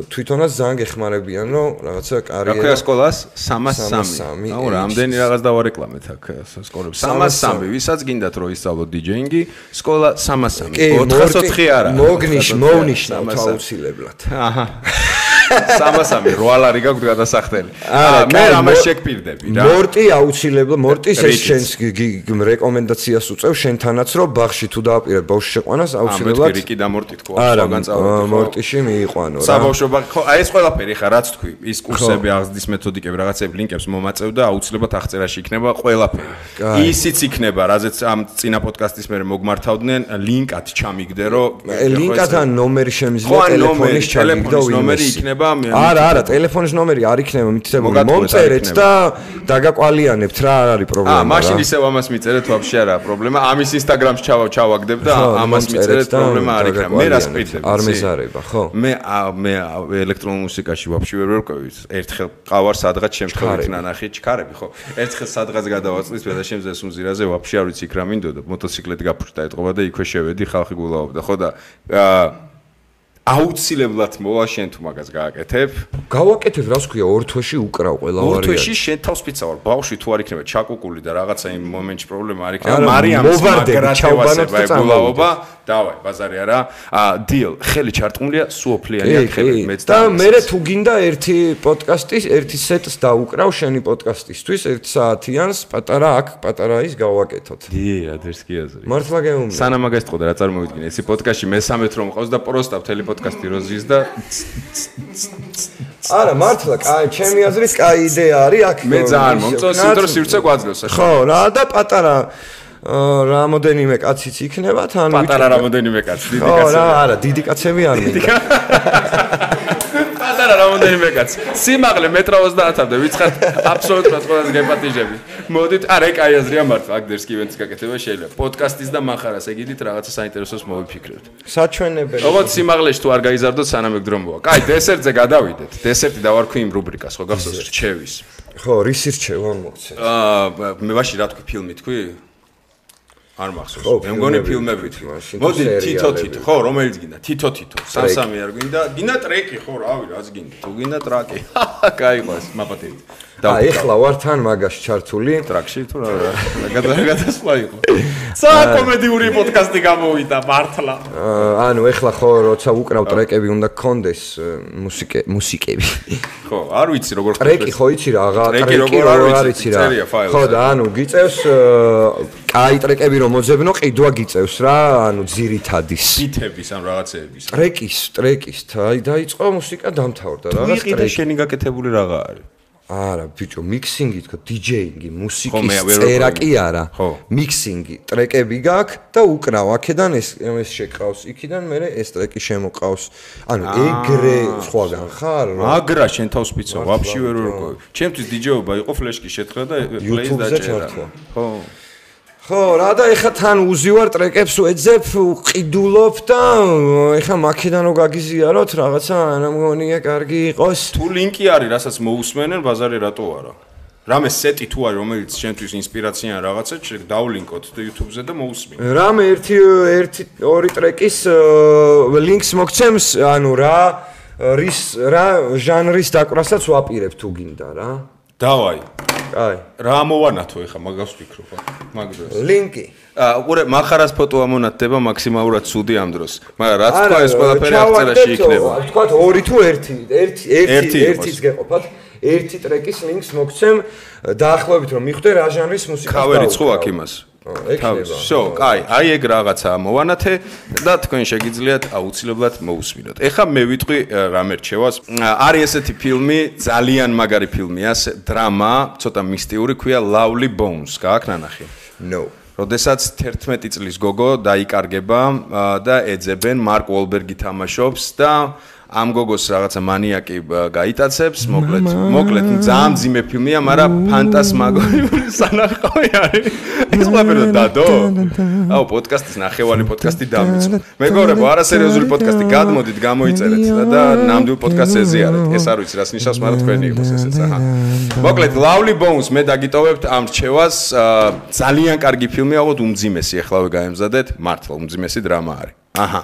თვითონაც ძალიან გეხმარებიან რომ რაღაცა კარიერა რა ქვია სკოლას 303 აუ რამდენი რაღაც დავარეკლამეთ აქ სკოლებს 303 ვისაც გინდათ რომ ისწავლო დიჯეინგი სკოლა 303 404 არა მოვნიშნავთ აუცილებლად აჰა 303 როალარი გაგვთ გადასახდელი მე ამას შეგპირდები რა მორტი აუცილებლად მორტის ეს შენს რეკომენდაციას უწევ შენთანაც რომ ბაღში თუ დააპირებ ბავშვს შეყვანას აუცილებლად რიკი და მორტი თქვა განწავლოთ მორტიში მიიყვანო რა საბავშვო ხო აი ეს ყველაფერი ხა რაც თქვი ის კურსები აღზრდის მეთოდიკები რაღაცები ლინკებს მომაწევ და აუცილებლად აღწერაში იქნება ყველაფერი ისიც იქნება რაზეც ამ წინა პოდკასტის მერე მოგმართავდნენ ლინკად ჩამიგდე რომ ლინკად ან ნომერი შემიძლია ტელეფონის ჩამიგდო ნომერი იქნება არა ტელეფონის ნომერი არ იქნება მითითებული მომწერეთ და დაგაკვალიანებთ რა არ არის პრობლემა მაშინ ისევ ამას მიწერეთ ვაფშე არა პრობლემა ამის ინსტაგრამს ჩავაგდებ და ამას მიწერეთ პრობლემა არ იქნება მე რას პირდები არ მეზარება ხო მე ელექტრონულ მუსიკაში ვაფშე ვერ ვერკვევი ერთხელ ყავარ სადღაც შემთხვევით ნანახი ჩქარები ხო ერთხელ სადღაც გადავაწვის და შემზეს უმზირაზე ვაფშე არ ვიცი იქ რა მინდოდა მოტოციკლეთი გაფრთხდა ეთყობა და იქვე შევედი ხალხი გულაობდა ხო და აუცილებლად მოვა შენ თუ მაგას გააკეთებ. გავაკეთებ, რას ქვია, ორ თვეში უკრავ ყველა ვარიანტი. ორ თვეში შენ თავს პიცავარ. ბავშვი თუ არ იქნება ჩაკუკული და რაღაცა იმ მომენტში პრობლემა არ იქნება. მარიამის მაგრატევასება ეგულაობა, დავაი, ბაზარი არა. დილ, ხელი ჩარტყმულია, სუოფლიანია ხელი მეც და მე თუ გინდა ერთი პოდკასტის, ერთი სეტს დაუკრავ შენი პოდკასტისთვის 1 საათიანს, პატარა აქ, პატარა ის გავაკეთოთ. დი, ადრეს კი აზრი. მართლა გეუბნები. სანამ მაგას თყოდა რა წარმოვიდგინე, ესი პოდკასტში მე-13 რომ მყავს და პროსტავ თელი პოდკასტი როზის და არა მართლა კაი ჩემი აზრით კაი იდეა არის აქ მე ძალიან მომწონს იმიტომ რომ სივრცე გვაძლევს ახლა ხო რა და პატარა რამოდენიმე კაციც იქნება თან პატარა რამოდენიმე კაცი დიდი კაცი ხო რა არა დიდი კაცები არ მინდა პატარა რამოდენიმე კაცი სიმაღლე 1.30-მდე ვიცხართ აბსოლუტურად ყველაზე გეპატიჟები მოდით არა კაი აზრია მართლა აქ დერსკი ივენტს გაკეთება შეიძლება პოდკასტის და მახარას ეგიდით რაღაცა საინტერესოს მოვიფიქრებთ საჩვენებელი როგორც სიმაღლეში თუ არ გაიზარდოთ სანამ ეგ დრომოა კაი დესერტზე გადავიდეთ დესერტი დავარქვი იმ რუბრიკას ხო გახსოვს რჩევის ხო რის რჩევა მოგცე მე ვაში რა თქვი ფილმი თქვი არ მახსოვს. მე მგონი ფილმები თქვი. მოდი თითო ხო, რომელიც გინდა? თითო. სამ-სამი არ გინდა? გინდა ტრეკი ხო, რავი, რაც გინდა. თუ გინდა ტრაკი. გაიყვას, მაპატივით. ეხლა ვარ თან მაგაში ჩართული ტრაკში თუ რა გადასვლა იყო. საკომედიური პოდკასტი გამოვიდა მართლა. ანუ ეხლა ხო როცა უკრავ ტრეკები უნდა გქონდეს მუსიკები. ხო, არ ვიცი როგორ ხდება. ტრეკი ხო იცი რა, ტრეკი როგორ არ ვიცი რა. ხო და ანუ გიწევს კაი ტრეკები რომ მოძებნო, ყიდვა გიწევს რა, ანუ ძირითადის. ბიტების ან რაღაცეების. ტრეკის, აი დაიწყო მუსიკა დამთავრდა რა. რა ყიდა შენი გაკეთებული რაღაცა არის? არა, ბიჭო, მიქსინგი თქო, დიჯეინგი, მუსიკის წერა კი არა. მიქსინგი, ტრეკები გაქვს და უკრავ აქედან ეს შეკრავს, იქიდან მე ეს ტრეკი შემოყავს. ანუ ეგრე სხვაგან ხარ? მაგრა შენ თავს პიცო, ვაფშე ვერ ვერკვევი. ჩემთვის დიჯეობა იყო ფლეშკი შეთხრა და პლეის დაჭერა. ხო. ხო, რა და ეხა თან უზივარ ტრეკებს ვეძებ, ვყიდულობ და ეხა მაქედან რო გაგიზიაროთ, რაღაცა არა მგონია კარგი იყოს. თუ ლინკი არის, რასაც მოусმენენ, ბაზარი რატო არა? რამე სეტი თუ არის, რომელიც შენთვის ინსპირაცია ან რაღაცა, დავლინკოთ YouTube-ზე და მოусმინე. რამე ერთი ორი ტრეკის ლინკს მოგცემს, ანუ რა ჟანრის დაკვრასაც ვაპირებ თუ გინდა რა. დავაი. აი. რა მოვანათო ეხა მაგას ვფიქრობ, მაგ დროს. ლინკი. ყურე, מחარას ფოტო ამონათდება მაქსიმალურად ცუდი ამ დროს. მაგრამ რაც თქვა ეს ყველაფერი აღწერაში იქნება. თქვა 2 თუ 1-ის გეყოფათ. ერთი ტრეკის ლინკს მოგცემ დაახლოებით რომ მიხვდე რა ჟანრის მუსიკას და ქავერი ცხო აქ იმას. ექნება. შო, აი ეგ რაღაცაა მოვანათე და თქვენ შეგიძლიათ აუცილებლად მოусმინოთ. ეხლა მე ვიტყვი რა მერჩევას. არის ესეთი ფილმი, ძალიან მაგარი ფილმია, დრამა, ცოტა მისტიური, ქვია Lovely Bones, გააქვს ნანახი? No. როდესაც 11 წლის გოგო დაიკარგება და ეძებენ მარკ უოლბერგი თამაშობს და ამ გოგოს რაღაცა მანიაკი გაიტაცებს, მოკლედ ძალიან ძიმე ფილმია, მაგრამ ფანტასმაგორიული სანახავი არის. ეს ყველაფერი დადო? აუ, პოდკასტის ნახევარი პოდკასტი დამიწყო. მეგობრებო, არასერიოზული პოდკასტი გადმოდით, გამოიწერეთ და ნამდვილ პოდკასტს ეზიარეთ. ეს არ ვიცი, რას ნიშნავს, მაგრამ თქვენი იყოს ესეც, აჰა. მოკლედ, Lovely Bones მე დაგიტოვებთ ამ რჩევას, ძალიან კარგი ფილმია, ალბათ უმძიმესი, ახლავე გაემზადეთ, მართლა უმძიმესი დრამა არის. აჰა.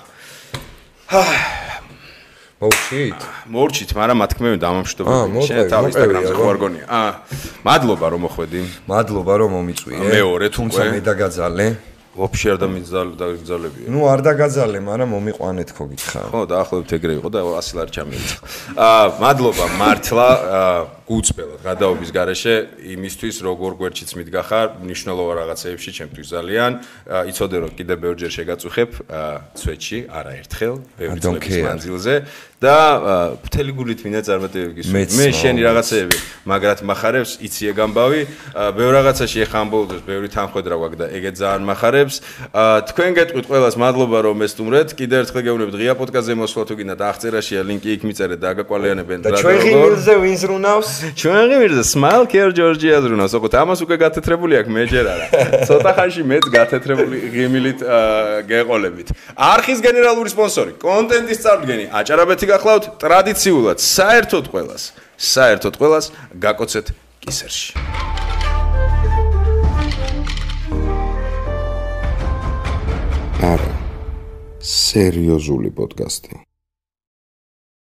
მორჩით, მაგრამ მათქმევი დამამშვიდობებელი. შენ თავ ინსტაგრამზე ხო არ გონია? მადლობა რომ მოხვედი. მადლობა რომ მომიწვიე. მეორე თუმცა მე დაგაძალე. ვაფშე არ დამიძალებია. ნუ არ დაგაძალე, მაგრამ მომიყვანეთ ხო გითხარ. ხო, დაახლოებით ეგრე იყო და 100 ლარი ჩამიეცა. მადლობა მართლა გუწბელად გადაობის გარეშე იმისთვის როგორ გვერდშიც მიდგახარ, მნიშვნელოვან რაღაცეებში ჩემთვის ძალიან. იცოდე რომ კიდე ბევრჯერ შეგაწუხებ ცვეთში, არაერთხელ, ბევრი წლების მანძილზე და მთელი გულით მინდა წარმატებები გისურვო. მე შენი რაღაცეები მაგრად מחარებს, იცი ეგ ამბავი, ბევრ რაღაცაში ეხა ამ ბოლოს ბევრი თანხმედრა გვაქვს და ეგეც ძალიან מחარებს. თქვენ გეტყვით ყველას მადლობა რომ ესტუმრეთ. კიდევ ერთხელ გეუბნებით ღია პოდკასტზე მოსვლა თუ გინდათ აღწერაშია ლინკი იქ მიწერეთ და აგაკვალიანებენ და ჩვენ ღიმილზე ვინ ზრუნავს? ჩვენ ღიმილზე Smile Care Georgia ზრუნავს. ოღონდ ამას უკვე გათეთრებული აქვს, მე ჯერ არა. ცოტა ხანში მეც გათეთრებული ღიმილით გეყოლებით. არხის გენერალური სპონსორი, კონტენტის წარდგენი, აჭარაბეთი გახლავთ ტრადიციულად, საერთოდ ყველას გაკოცეთ კისერში. არა. სერიოზული პოდკასტი.